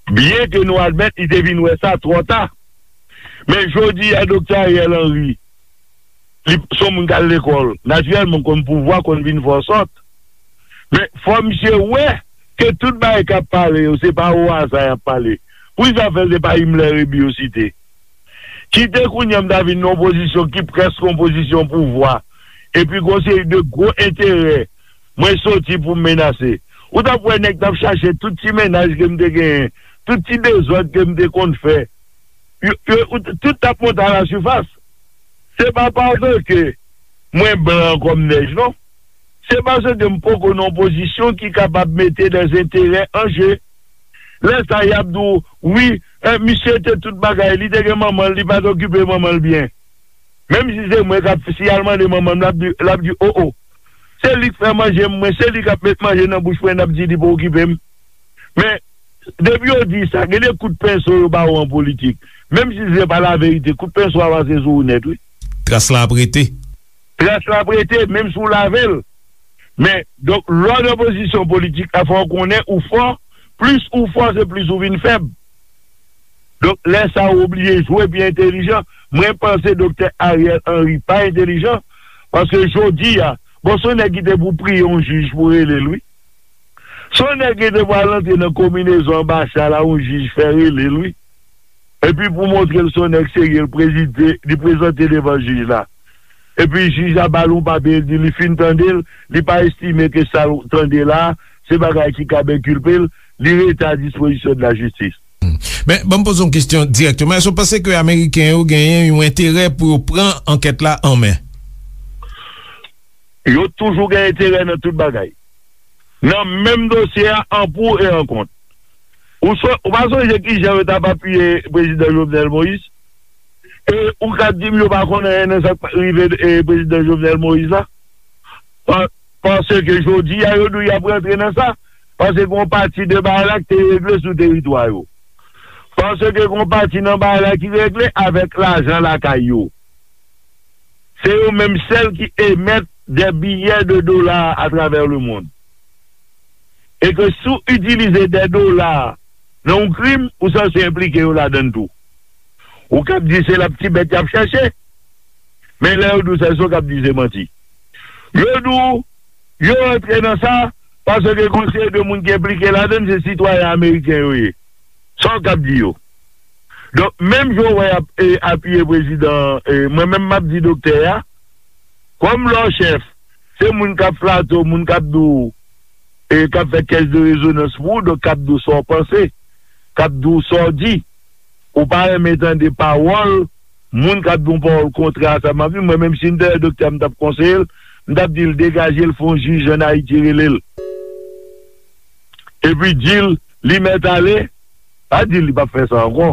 Byen ke nou admèt li te vin wè sa twò ta. Men jodi a, Doktè Ariel Henry, li se yon moun k al lekòl. Natirèlman, konn pouvwa, konn vin fè w sòt. Men fò misye wè ke tout bagay k ap pale yo, se pa o aza y ap pale. Poukisa fè se pa Himmler Rébu yo site? Kite kounye a m ta vin nan yon pozisyon ki prèske yon pozisyon pouvwa, epi gon seri de gwo enterè mwen soti pou m menase. Ou t ap wè nèg t ap chache tout ti mennaj ke m te genyen, tout ti dezòd ke m te konn fè. Yo, yo, ou t-, tout t ap monte alasifas. Se pa paske mwen blan kòm nèj, non. Se paske m poko nan yon pozisyon ki kapab mete dèzenterè an je. Lè sa, y ap di w, wi, eh, misye te tout bagay, li te gen manman l, li pa t okipe manman l byen. Menm si se mwen k ap, si y al mande manman m, l ap di, l ap di, o, o. Se li k fè manje m, mwen, se li k ap met manje nan bouch mwen, n ap di li pa okipe m. Men, depi yo di sa, gen de kout penso yo ba w an politik. Menm si se pa laverite, kout penso a pase sou ou nèt, wi. Tras la ap rete. Tras la ap rete, menm si w lave l. Men, donk, lè w nan pozisyon politik la, fò w konnen ou fò. Plis ou fò, se plis ou vin fèb. Donk, lè sa a, ou oblije jwe pi entelijan. Mwen panse Doktè Ariel Henry pa entelijan, paske jodi a, bon, se yon nèg ki te pou priye yon jij pou rele l, wi. Se yon nèg ki te pral antre nan konbinezon anbasad la, yon jij fè rele l, wi. Epi pou montre l se yon nèg serye, l prezide, li prezante devan jij la. Epi jij la ba l yon papye, li di li fin tande l, li pa estime ke sa l tande la, se bagay ki kab enkilpe l, li rete a dispozisyon de la jistis. Men, ban m poze yon kesyon dirèkteman. Èske w panse ke Ameriken yo genyen yon enterè pou yo pran ankèt la an men? Yo toujou gen enterè nan tout bagay. Nan menm dosye a, an pou e an kont. Ou, so, ou pa sonje ki jan yo t ap apiye Prezidan Jovenel Moïse? E ou ka di m yo pa konn anyen nan sa k rive e, Prezidan Jovenel Moïse la? Pa, paske jodi a, yo di w y ap rantre nan sa. Paske gen yon pati de bagay la ki te regle sou teritwa yo. Paske gen yon pati nan bagay la ki regle avèk lajan lakay yo. Se yo menm sèl ki emèt de biyè de dola atravè lemonn. E ke si w itilize de dola nan yon krim, ou sanse enplike yo ladan l tou. Ou kab di se laptibèt y ap chèche, men lè yo di w sa, se w kab di se manti. Yo di w, yo rantre nan sa, paske gen yon seri de moun ki enplike ladan l, se sitwayen ameriken yo ye. Sa w kab di yo? Donk, menm jan w wè y ap, e, apiye prezidan, e, mwen menm m ap di doktè a, kòm lè w chèf, se moun k ap flate w, moun k ap di w, e, k ap fè kèch de rezonans pou ou, donk k ap di w sa w panse, k ap di w sa w di. Ou pa renmen tande pawòl moun k ap di yon pawòl kontrè a sa m ap di. Mwen menm, si m te wè doktè a, m t ap konseye l, m t ap di l degaje l, fè yon jij ann Ayiti rele l. Epi di l, li mèt ale, pa di l li p ap fè sa ankò.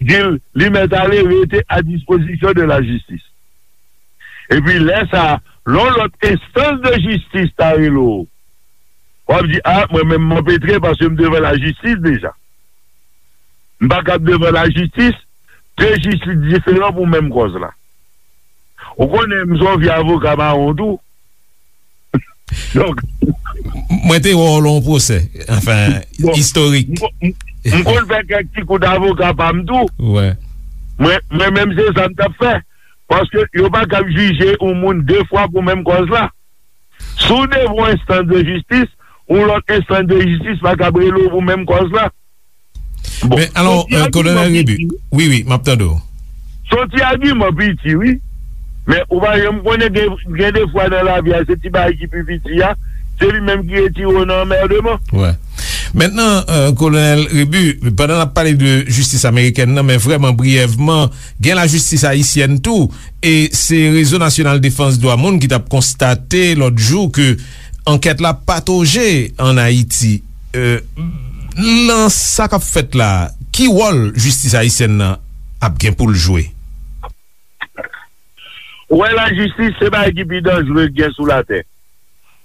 Di l, li mèt ale, rete a dispozisyon de la jistis. Epi lè sa a, lè yon lòt enstans de jistis ta rele w, w ap di, a, mwen menm m anpetre paske m devan lajistis deja. M pa kab devan lajistis, de jistis diferan pou menm kòz la. Ou konnen m se yon vye avoka mawon tou. Donk, mwen te wè w lè yon pwosè, anfen, bon, istorik. M, m, m konn fè kèk ti kout avoka pa m tou. Wè. Mwen, mwen menm se sa m t ap fè. Paske yo pa kab jije yon moun de fwa pou menm kòz la. Si w devan yon enstans de jistis, yon lòt enstans de jistis pa kab rele w pou menm kòz la. Bon, men alò, se yon ti, euh, agiman Kolonèl Rebu, piti, wi, wi, m ap tande w. Se yon ti agiman piti, wi. Men ou pa janm konnen, gen, gen de fwa nan lavi a, se ti bagay ki pi piti a, se li menm ki retire w nan anmèdman. Wè. Mentnan, euh, Kolonèl Rebu, pandan n ap pale de jistis amerikèn nan, men vrèman briyèvman, gen lajistis ayisyèn tou, e se Rezo Nasyonal Defans Dwa Moun ki t ap konstate lòt jou ke ankèt la patoje ann Ayiti. Euh, nan sa k ap fèt la, ki wòl jistis ayisyèn nan ap gen pou l jwe? Ou wè, lajistis se bagay ki pi danjere k gen sou latè.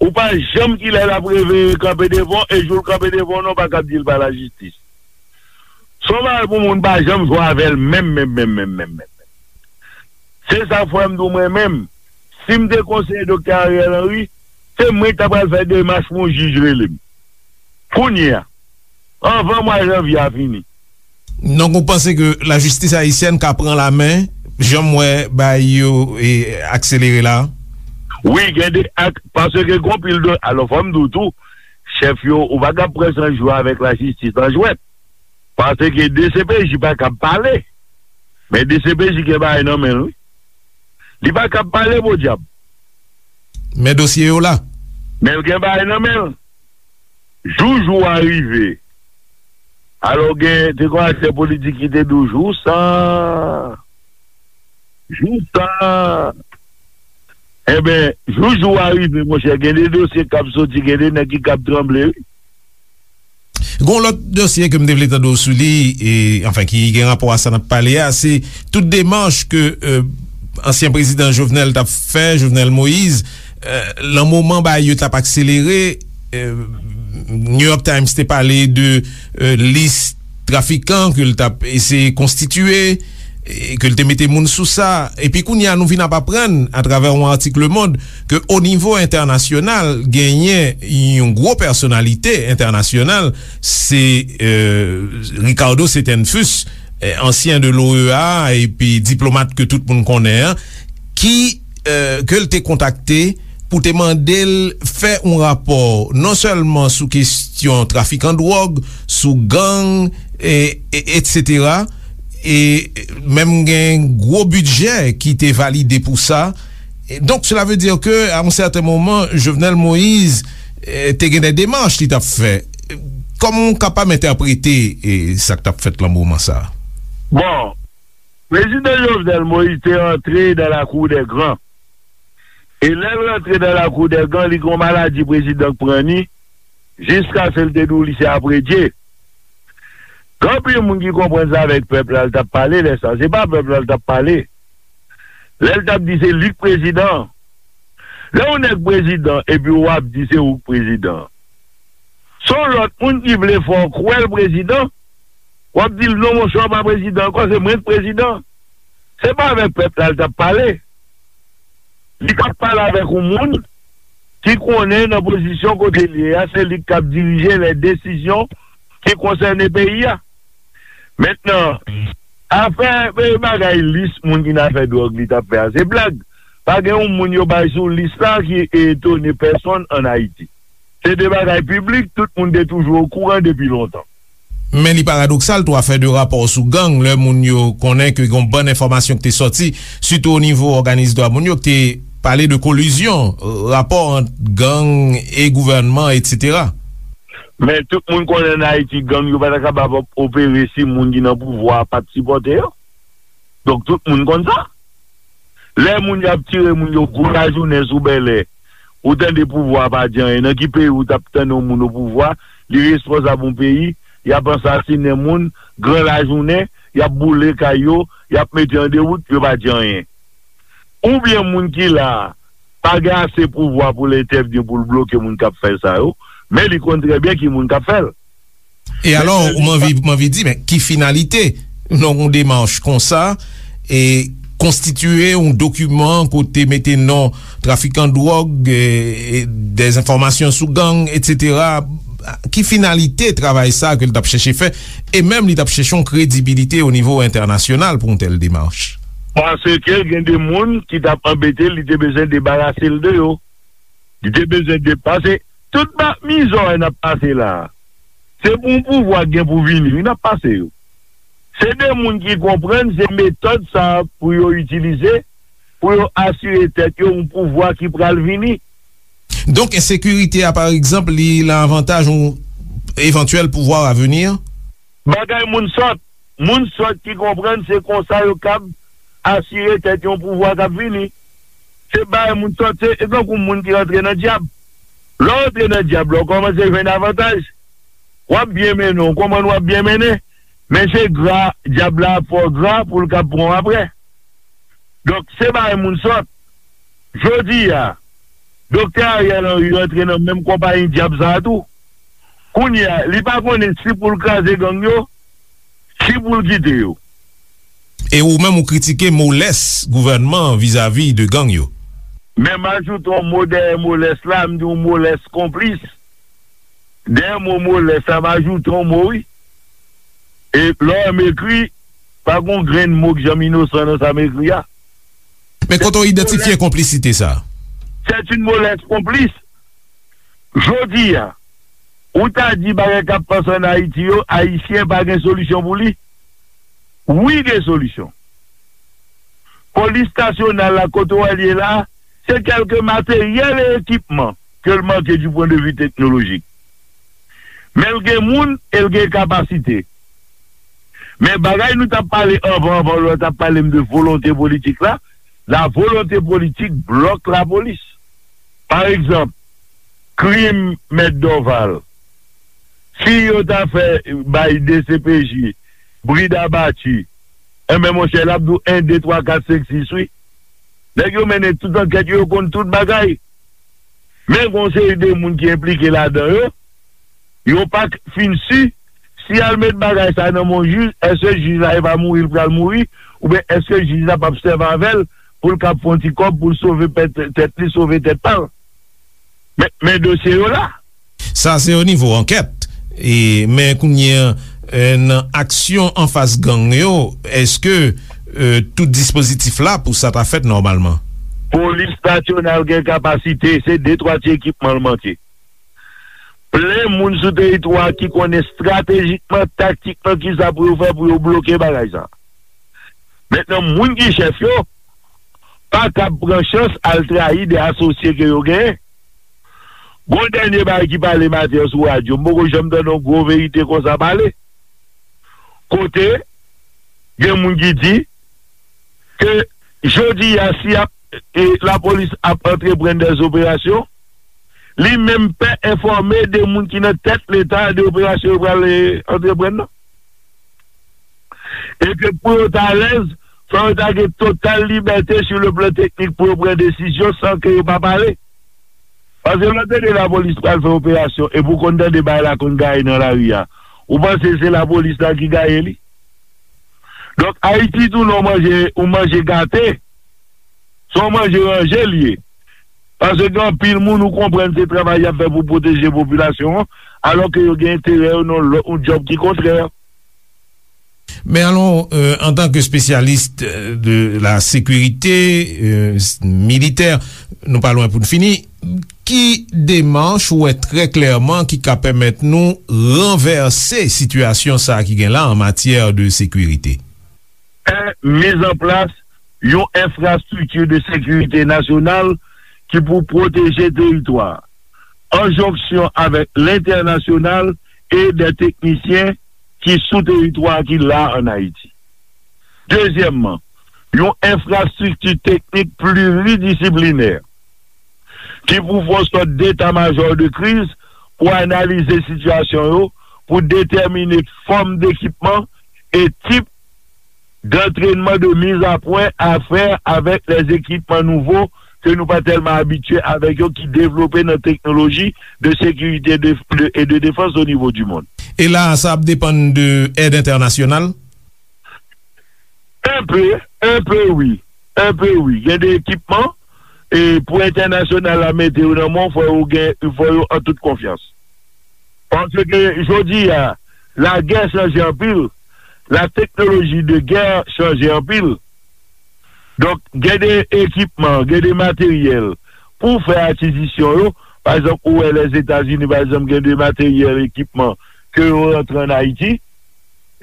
Ou pa janm kilè l ap reveye kanpe devan w, e jou l kanpe devan w, non, w pa kab di l pa lajistis. Se yon bagay pou moun pa janm jwe avè l menm, menm, menm, menm, menm, menm. Se sa k fè m di w mwen menm, si m te konseye Doktè Ariel Henry, se mwen ki ta pral fè demach pou yon jij rele m. Kounye a, anvan mwa janvye a fini. Donk, ou panse ke lajistis ayisyèn ka pran lamen, jan m wè bagay yo, e, akselere la? Wi, gen de ak, paske gen pil de, alò, fò m di w tou, chèf yo, ou pa kab pran san jwe avèk lajistis nan jwèt. Paske D C P J pa kab pale. Men D C P J gen bagay nan men l, wi. Li pa kab pale, podyab. Men dosye yo la. Men l gen bagay nan men l. Jou jou a rive. Alò, gen, te gen aktè politik ki te di w, jou sa, jou sa. Enben, jou jou a rive, monchè, gen de dosye k ap soti, gen de nèg ki kab tranble, wi. Gon lòt dosye ke m te vle tande w sou li, e, anfen, ki gen rapò a sa n ap pale a, se tout demach ke, euh, ansyen prezidan Jovenel t ap fè, Jovenel Moïse, euh, lan moman bagay yo t ap akselere, euh, New York Times te pale de, euh, lis trafikan ke l t ap eseye konstitiye, e ke l te mete moun sou sa. Epi kounye a, nou vin ap aprann, atravè yon atik Le Monde, ke o nivo entènasyonal, genyen yon gwo pèsonalite entènasyonal, se, e, Ricardo Setenfus, e, ansyen de l'O E A, epi diplomat ke tout moun konnen an, ki, e, ke l te kontakte pou te mande l fè yon rapò non sèlman sou kesyon trafikan dwòg, sou gang, e, e, etsetera, e menm gen gwo bidjè ki te valide pou sa. E donk, cela veut dire que, à un certain moment, Jovenel Moïse, e, te gen de demach li t ap fè. Kòman w kapab entèprete, e, sa k t ap fèt lan moman sa a? Bon, Prezidan Jovenel Moïse te antre dans la cour des grands. E lè l rantre dans la cour des grands, li gon maladi prezidan k pran ni, jiskaske l te di w li se apredye. Gen anpil moun ki konprann se avèk pèp la l t ap pale lè sa. Se pa pèp la l t ap pale. Lè l t ap di se li k prezidan. Lè yon nèg prezidan epi w ap di se ou k prezidan. Se yon lòt moun ki vle fè w kwè l prezidan. W ap di l non monchè, w pa prezidan ankò, se mwen k prezidan. Se pa avèk pèp la l t ap pale. Li t ap pale avèk yon moun ki konnen nan pozisyon kote l ye a, se li k ap dirije lè desizyon ki konsène peyi a. Mentnan, afè, e, bagay lis moun ki nan afè dwòg li t ap fè a, se blag. Pa gen yon moun yo bay sou lis la ki etone pèsonn ann Ayiti. Se de bagay piblik, tout moun te toujou okouran depi lontan. Men li paradoksal tou, afè de rapò sou gang, lè moun yo konnen ke gon bann enfòmasyon ki te sòti, sitou o nivo òganis dwa moun yo, ki te pale de kolizyon, rapò ant gang e gouvènman, etsetera. Men tout moun konnen ann Ayiti, gang yo pa ta kapab ap opere si moun ki nan pouvwa a pa t sipòte yo. Donk, tout moun konn sa. Lè moun y ap tire moun yo gwo lajounen sou Bèlè, ou tande pouvwa a pa di anyen. Nan ki peyi ou t ap tande yon moun o pouvwa, li responsab yon peyi, y ap ansasinen moun, gran lajounen, y ap boule kay yo, y ap mete an dewout, yo pa di anyen? Oubyen moun ki la a pa gen ase pouvwa pou l entèvni, pou l bloke moun k ap fè sa yo, men li konn trè byen ki moun k ap fè l. E alò, m anvi, m anvi di, men ki finalite nan yon demach konsa, e konstitiye yon dokiman kote mete non trafikan dwòg, e, e dezenfòmasyon sou gang, etsetera? Ki finalite travay sa ke l t ap chèche fè? E menm li t ap chèche yon kredibilite o nivo entènasyonal pou yon tèl demach. Paske gen de moun ki t ap anbete l, li te bezwen debarase l de yo. Li te bezwen de, paske tout ba, mizè w wè n ap pase la a, se pou yon pouvwa k gen pou vini, wi, n ap pase yo. Se de moun ki konprann se metòd sa a pou yo itilize, pou yo asire tèt yo yon pouvwa ki pral vini. Donk, ensekirite a, pa egzanp, li lan avantaj yon evantyèl pouvwa a vini? Bagay moun sòt. Moun sòt ki konprann se konsa yo kab asire tèt yon pouvwa k ap vini. Se bagay moun sòt, se, se tankou moun ki rantre nan dyab. Lè w rantre nan dyab la, w kòmanse jwenn avantaj. W ap byen mennen, w konprann w ap byen mennen. Men se gra, dyab la ap fè w gra pou l kab pran w apre. Donk, se bagay moun sòt. Jodi a, Doktè Ariel Henry rantre nan menm konpayi dyab sa a tou. Kounye a, li pa konnen si pou l kraze gang yo, si pou l kite yo. E ou menm ou kritike molès gouvènman an vizavi de gang yo. Men m ajoute yon mo dèyè molès la, m di yon molès konplis. Dèyè mo molès la, m ajoute yon mo, wi. E lè w wè m ekri, pa gon grenn mo k janm inosan nan sa m ekri a. Men kote w idantifye konplisite sa a? C'est une mauvaise complice. Jodi a, ou ta di bagay k ap pase ann Ayiti yo, Ayisyen pa gen solisyon pou li? Wi, gen solisyon. Polis nasyonal la, kote w wè l ye la, se kèlke materyèl e ekipman ke l manke du point de vue technologique. Men l gen moun e l gen kapasite. Men bagay nou t ap pale anvan, anvan lè w t ap pale m de volonte politik la, la volonté politique bloque la police. Pa egzanp, krim Mèt Dorval, si yo ta fè bay D C P J brid abati, enben, monchè, l ap di w en, de, twa, kat, senk, sis, wi. Nèg yo mennen tout ankèt yo, yo konn tout bagay. Men gon seri de moun ki enplike ladan yo, yo pa k fin si Si y al met bagay sa nan men yon jij, èske jij la e pa mouri l pral mouri, oubyen èske jij la p ap sèvi avè l pou l kab fè yon ti kòb pou l sove pèt, tèt li, sove tèt pa l? Men, men dosye yo la. Sa se o nivo ankèt. E, men kounye a, e, nan aksyon anfas gang yo, èske, e, tout dispozitif la pou sa ta fèt nòmalman? Polis nasyonal gen kapasite, se de twa ti ekipman l manke. Plen moun sou teritwa a ki konnen estratejikman, taktikman, kisa pou yo fè pou yo bloke bagay sa. Mentnan, moun ki chèf yo pa kab pran chans al trayi de asosye ke yo genyen. Gon dènye bagay ki pale maten an sou radyo, m poko janm tande yon gwo verite konsa pale. Kote gen moun ki di ke jodi a, si ap, e, lapolis ap antreprann dèz operasyon, li menm pè enfòme de moun ki nan tèt Leta de operasyon yo pral, e, antreprann nan. E ke pou yo ta alèz, fò yo ta gen total libète sou le plan teknik pou yo pran desizyon san ke yo pa pale. Paske lè w tande lapolis pral fè operasyon, epi w konn tande bagay la konn gaye nan lari a, ou panse se lapolis la ki gaye li? Donk, Ayiti tou, lè w manje, ou manje gate, se yon manje ranje l ye. Paske gen anpil moun ou konprann se travay y ap fè pou pwoteje popilasyon an, alò ke yo gen enterè yo nan lòt, yon djòb ki kontrè. Men alon, euh, antanke espesyalis, euh, de la sécurité, euh, s-, militè, nou pa lwen pou n fini, ki demach ou wè trè klèman ki ka pèmèt nou ranvèse sitiyasyon sa a ki gen la an matyè de sekirite? Miz an plas yon enfrastrikti de sekirite nasyonal ki pou pwoteje teritwa a, an jonksyon avèk lentènasyonal e de teknisyen ki sou teritwa a ki la ann Ayiti. Dezyèmman, yon enfrastrikti teknik pliridisiplinè ki pou fè yon sòt deta majò de kriz pou analize sitiyasyon yo, pou detèmine fòm dekipman e tip d'entraînement de mise à point à faire avec les équipements nouveaux ke nou pa tèlman abitye avèk yo, ki devlope nan teknoloji de sekirite de, de, e de defans o nivo di mond. E la, sa ap depann de èd entènasyonal? Enpe, enpe wi. Enpe wi. Gen de ekipman, e pou entènasyonal la mete yo nan men w, fò yo gen, fò yo an tout konfyans. Paske jodi a, lagè chanje anpil, la teknoloji de gè chanje anpil. Donk, gen de ekipman, gen de materyèl pou fè akizisyon yo. Pa egzanp, ou wè Lèzetazini, pa egzanp, gen de materyèl, ekipman ke yo rantre ann Ayiti,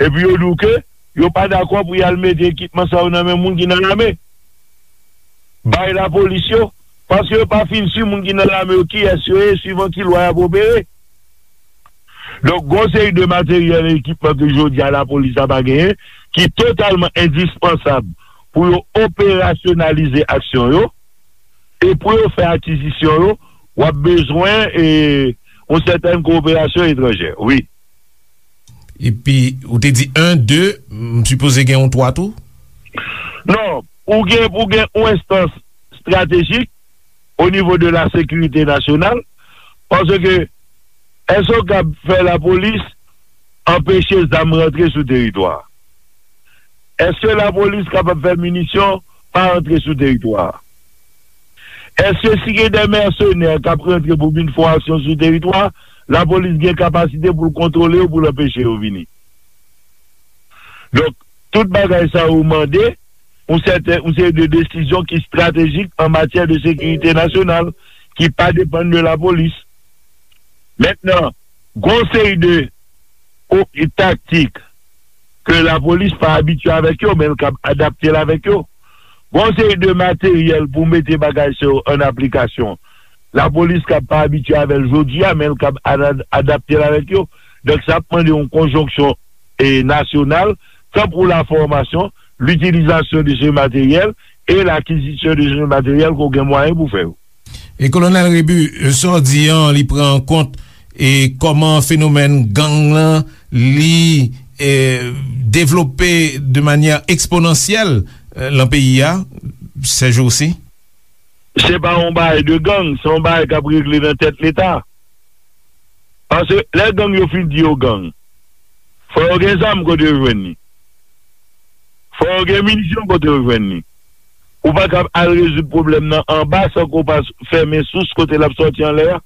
epi yo di w ke yo pa dakò pou y al mete ekipman sa yo nan men moun ki nan lame. Bay lapolis yo, paske yo pa fin si moun ki nan lame yo kiyès yo ye, swivan ki lwa y ap opere. Donk, gon seri de materyèl e ekipman ke jodi a lapolis la pa genyen, ki totalman endispansab pou yo operasyonalize aksyon yo, e pou yo fè akizisyon yo, w ap bezwen, e, yon sètèn kowoperasyon etranjè, wi. Epi, ou te di en, de, m sipoze gen yon twa tou? Non, ou gen pou gen yon enstans estratejik o nivo de la sekirite nasyonal, paske èske w kab fè lapolis anpeche zam rantre sou teritwa a? Èske lapolis kapab fè minisyon pa rantre sou teritwa a? Èske si gen de mèsenè k ap rantre pou vin fè yon aksyon sou teritwa a, lapolis gen kapasite pou l kontwole yo, pou l anpeche yo vini? Donk, tout bagay sa yo mande yon sèten, yon seri de desizyon ki estratejik an matyè de sekirite nasyonal, ki pa depann de lapolis. Mentnan, gon seri de o-, taktik ke lapolis pa abitye avèk yo, men l kab adapte l avèk yo. Gon seri de materyèl pou mete bagay sa yo an aplikasyon. Lapolis kab pa abitye avè l jodi a, men l kab ada-, adapte l avèk yo. Donk, sa ap mande yon konjonksyon, e, nasyonal, tan pou lafòmasyon, litilizasyon de se materyèl e lakizisyon de se materyèl ke w gen mwayen pou fè yo. E Kolonèl Rebu, sa w di an, li pran an kont e kòman fenomèn gang lan, li, e, devlope de manyè eksponansyèl, e, lan peyi a, sèjousi? Se pa yon bagay de gang, se yon bagay k ap regle nan tèt Leta. Paske lè gang yo fin di yo gang, Fò yo gen zam kote yo jwenn li. Fò yo gen minisyon kote yo jwenn li. Ou pa kab al rezoud pwoblèm nan anba san ke w pa fèmen sous kote l ap sòti anlè a.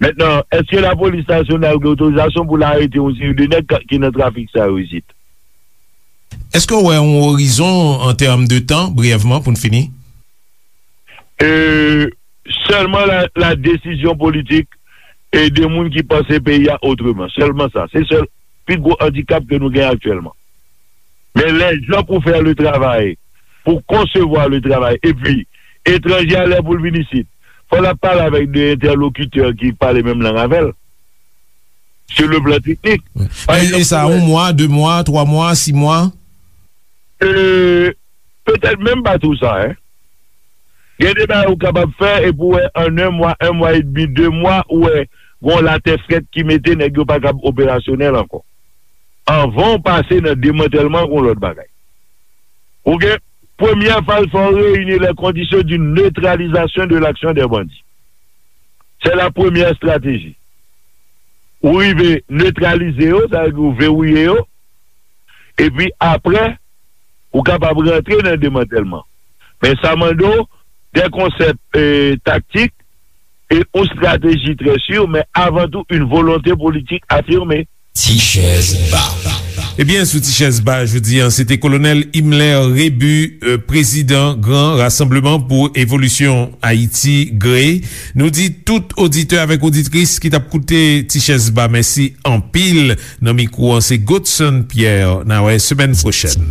Mentnan, èske lapolis nasyonal gen otorizasyon pou l arete yon seri de nèg ka- ki nan trafik sa yo isit? Èske w wè yon orizon an tèm de tan, briyèvman, pou n fini? E, sèlman la, la desizyon politik e de moun ki panse peyi a otreman. Sèlman sa. Se sèl pi gwo andikap ke nou gen aktyèlman. Men lè jan pou fè le travay, pou konsevwa le travay, epi etranje a lè pou l vin isit, fò l ap pale avèk de entèlokitè ki pale menm lang avè l, sou le plan teknik. Pa egzanp, e sa, yon mwa, de mwa, twa mwa, sis mwa? E, petèt menm pa tou sa, en. Gen de bagay ou kapab fè, epi w wè an en mwa, en mwa edmi, de mwa, ou wè gon latè frèt ki mete nèg yo pa kab operasyonèl ankò. Anvan w pase nan demantèlman, gon lòt bagay. Ou gen, premyè faz, fò w reyini les conditions d'une neutralisation de l'action des bandits. C'est la première stratégie. Ou rive netralize yo, sa vle di ou verouye yo, epi apre, ou kapab rantre nan demantèlman. Men sa mande w de konsèp, e, taktik e yon strateji trè si, men avan tou, yon volonte politik afime. Ti Chèz Ba. Ebyen, sou Ti Chèz Ba, jodi a, se te Kolonèl Himmler Rébu, e, prezidan Gran Rasanbleman pou Evolisyon Ayiti, GRAE. Nou di tout oditè avèk oditris ki t ap koute Ti Chèz Ba, mèsi anpil. Nan mikwo an, se Godson Pierre. N a wè semèn pwochèn.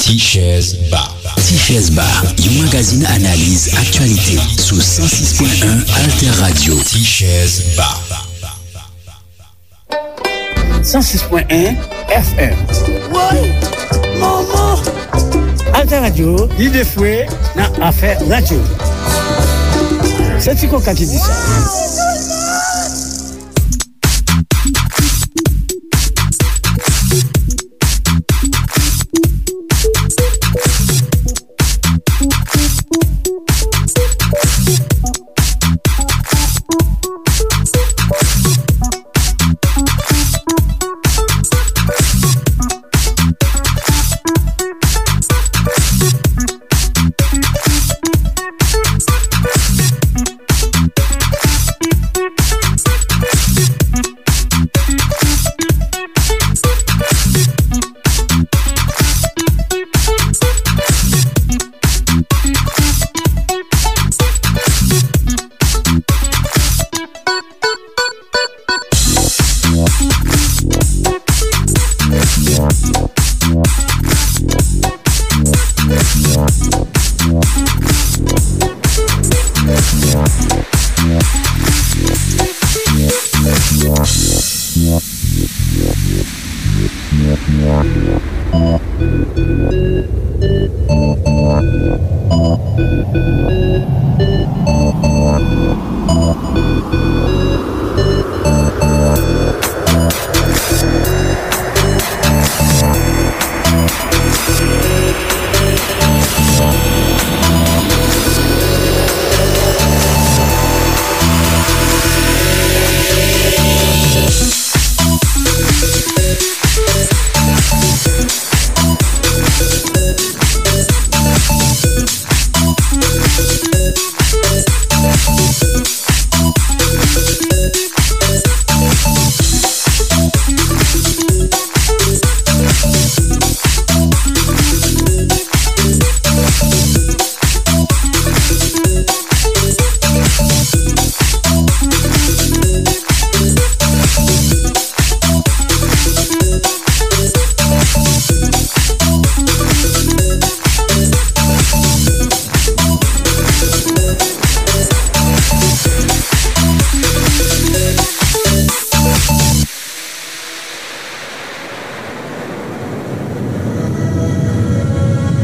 Ti Chèz Ba. Ti Chèz Ba, yon magazin analiz aktyalite sou san sis pwen en Alter Radio. Ti Chèz Ba. San sis pwen en F M. Woy! Manman! Alter Radio, lide fwe nan afè radyo. Se Ti Koka ki di sa.